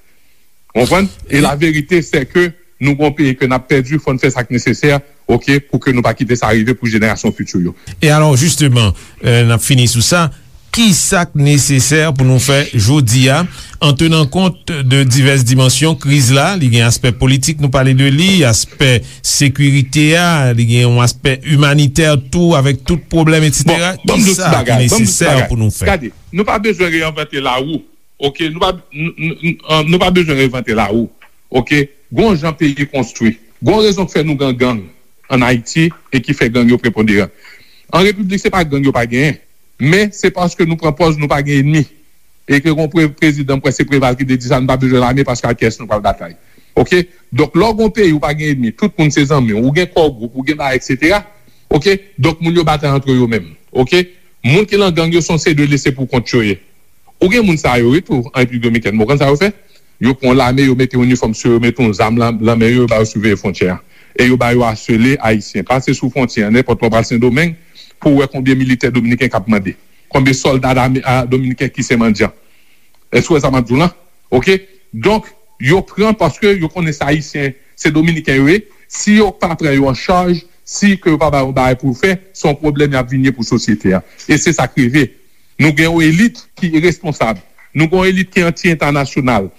Ou konprann? E laverite, se ke nou gon peyi ke n ap pèdi, fò n fè sa k nesesè, oke, pou ke nou pa kite sa rive pou jenerasyon fiti yo. E alò, jisteman, euh, n ap fini sou sa. Ki sa k nesesè pou nou fè jodi a, an tenan kont de divès dimansyon kriz la? Li gen aspè politik, nou pale de li, aspè sekirite a, li gen yon aspè imanitè tou, avèk tout pwoblèm, etsetera. Bon, ban m di w ti bagay, ban m di w ti bagay. Ki sa ki nesesè pou nou fè? Gade, nou pa bezwen reyennvante lawou. Oke, nou pa, n- n- n- an, nou pa bezwen reyennvante lawou. Oke, gon jan peyi konstwi. Gon rezon k fè nou gen gang ann Ayiti e ki fè gang yo preponderan. An repiblik, se pa gang yo pa genyen, men se paske nou pran pòz nou pa gen enmi. E ke gon pre- prezidan, m kwè se Preval ki te di sa, nou pa bezwen lame paske ak kiyès nou pral batay. Oke? Donk, lè w gon peyi ou pa gen enmi, tout moun se zanmi w, ou gen kò gwoup, ou gen bagay, etsetera. Oke? Donk, moun yo batay antre yo menm. Oke? Moun ki nan gang yo se yon seri de lese pou kont yo ye. Ou gen moun sa yo wi tou an Repiblik Dominikèn. Bon, ou konn sa yo fè? Yo pran lame, yo mete inifòm sou yo, mete yon zam lan, lan men yo, yo ba yo siveye fwontyè a. E yo ba yo asele Ayisyen. Pase sou fwontyè a, nenpòt lè w pral Sendomeng, pou w wè konbyen militè dominiken k ap mande. Konbyen sòlda dame- a, dominiken ki se mandyan. Èske w wè sa m ap di w lan? Oke? Donk, yo pran paske yo konnen se Ayisyen, se Dominiken yo ye. Si yo pa pran yo an chaj, si ke yo pa ba yo bagay pou yo fè, se yon pwoblèm y ap vin ye pou sosyete a. E se sa k rive. Nou gen yon elit ki iresponsab. Nou gen yon elit ki anti-entènasyonal,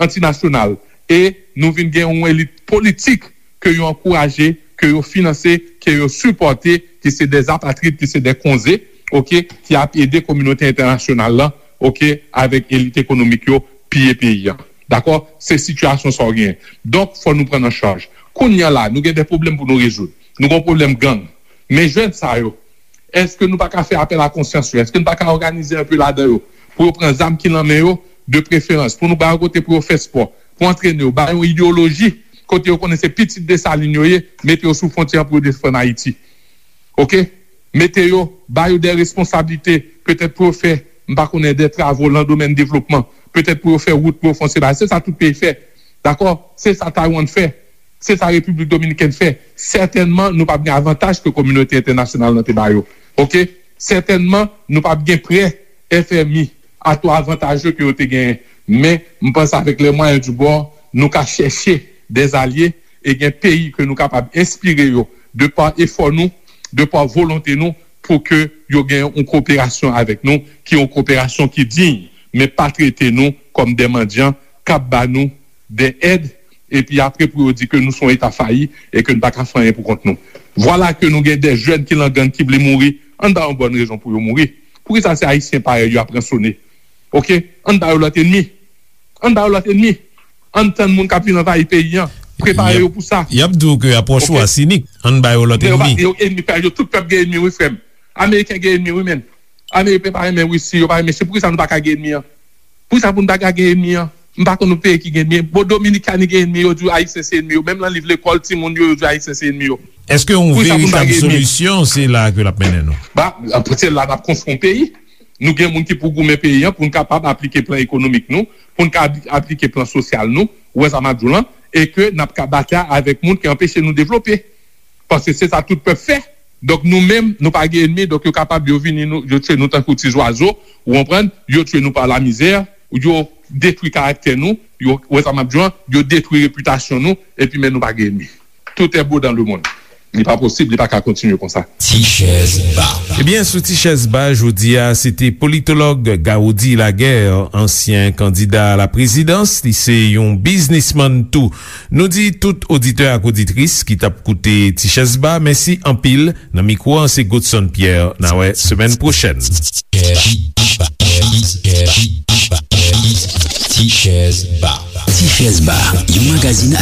anti-nasyonal. E nou vin gen yon elit politik ke yo ankouraje, ke yo finanse, ke yo sipòte, ki se de apatrid, ki se de konze, oke, ki ap ede kominote entènasyonal lan, oke, avèk elit ekonomik yo, piye peyi a. Dakò? Se sitiyasyon sa w genyen. Donk, fò nou pran an chaj. Kounye a la, nou gen de pwoblèm pou nou rezoud. Nou gen yon pwoblèm gang. Men jèn sa yo, èske nou pa ka fè apèl a konsyans yo? Èske nou pa ka òganize enpe ladan yo pou yo pran zam ki nan men yo, de preferans, pou nou ba yo kote pou yo fè spò, pou antrene yo, ba yo yon ideyoloji, kote yo konnen se pitit Desalin yo ye, mete yo sou fwontyè an pou yo defann Ayiti. Oke? Mete yo, ba yo de responsablite, petèt pou yo fè, m pa konnen, de travo nan domèn devlopman, petèt pou yo fè wout, pou yo fè yon seri bagay. Se sa tout peyi fè. Dakò? Se sa Taiwan fè. Se sa Repiblik Dominikèn fè. Sètènman, nou p ap gen avantaj ke kominote entènasyonal lan te ba yo. Oke? Sètènman, nou p ap gen prè F M I a to avantaje ke yo te genyen. Men, m panse avèk les moyens du bord, nou ka chèche de alye e gen peyi ke nou kapab enspire yo de pa efò nou, de pa volonte nou, pou ke yo gen yon koperasyon avèk nou, ki yon koperasyon ki diy, men pa trete nou kòm de mandyan k ap ba nou de èd, epi apre pou yo di ke nou se yon eta fayi e ke nou pa ka fè anyen pou kont nou. Vwala ke nou gen de jèn ki nan gang ki vle mouri, ann ba yo bòn rezon pou yo mouri. Poukisa se Ayisyen parèy yo ap ransone? Oke? Ann ba yo lòt enmi. Ann ba yo lòt enmi. Ann tann moun k ap vin anvayi peyi an. Prepare yo pou sa. Y ap di w ke apwòch ou a sinik. Ann ba yo lòt enmi. Yo enmi, yo tout pèp gen enmi, wi, frè m. Ameriken gen enmi, wi, menn. Ameriken pa renmen Risi, yo pa renmen Chin. Poukisa nou pa ka gen enmi an? Poukisa pou nou pa ka gen enmi an? M pa konn yon peyi ki gen enmi. Bon, Dominikani gen enmi, yo di w Ayisyen se enmi yo. Menm nan liv lekòl timoun yo, yo di w Ayisyen se enmi yo. Èske yon veritab solisyon, se la ke l ap mennen nou? Ba, se la n ap konstwi yon peyi. Nou gen moun ki pou goumen peyi an, pou n kapab aplike plan ekonomik nou, pou n ka aplike plan sosyal nou, ou wè sa m ap di w lan, e ke n ap ka batay avèk moun ki anpeche nou devlope. Paske se sa tout pèp fè. Donk, nou menm, nou pa gen enmi, donk, yo kapab, yo vini, nou, yo tchwe nou tankou ti zwazo, ou konprann, yo tchwe nou pa lamizè, yo detwi karaktè nou, yo, ou wè sa m ap di w lan, yo detwi repitasyon nou, epi men nou pa gen enmi. Tout est beau dans le monde. Li pa posib, li pa ka kontinye konsa. Ti chèz ba. Ebyen, sou Ti chèz ba, jodi a, se te politològ Gaudy Laguerre, ansyen kandida a la prezidans, li se yon biznismann tou. Nou di tout oditè ak oditris ki t ap koute Ti chèz ba, mèsi anpil. Nan mikwo an, se Godson Pierre. N a wè semèn pwochèn. Ti chèz ba. Ti chèz ba, yon magazin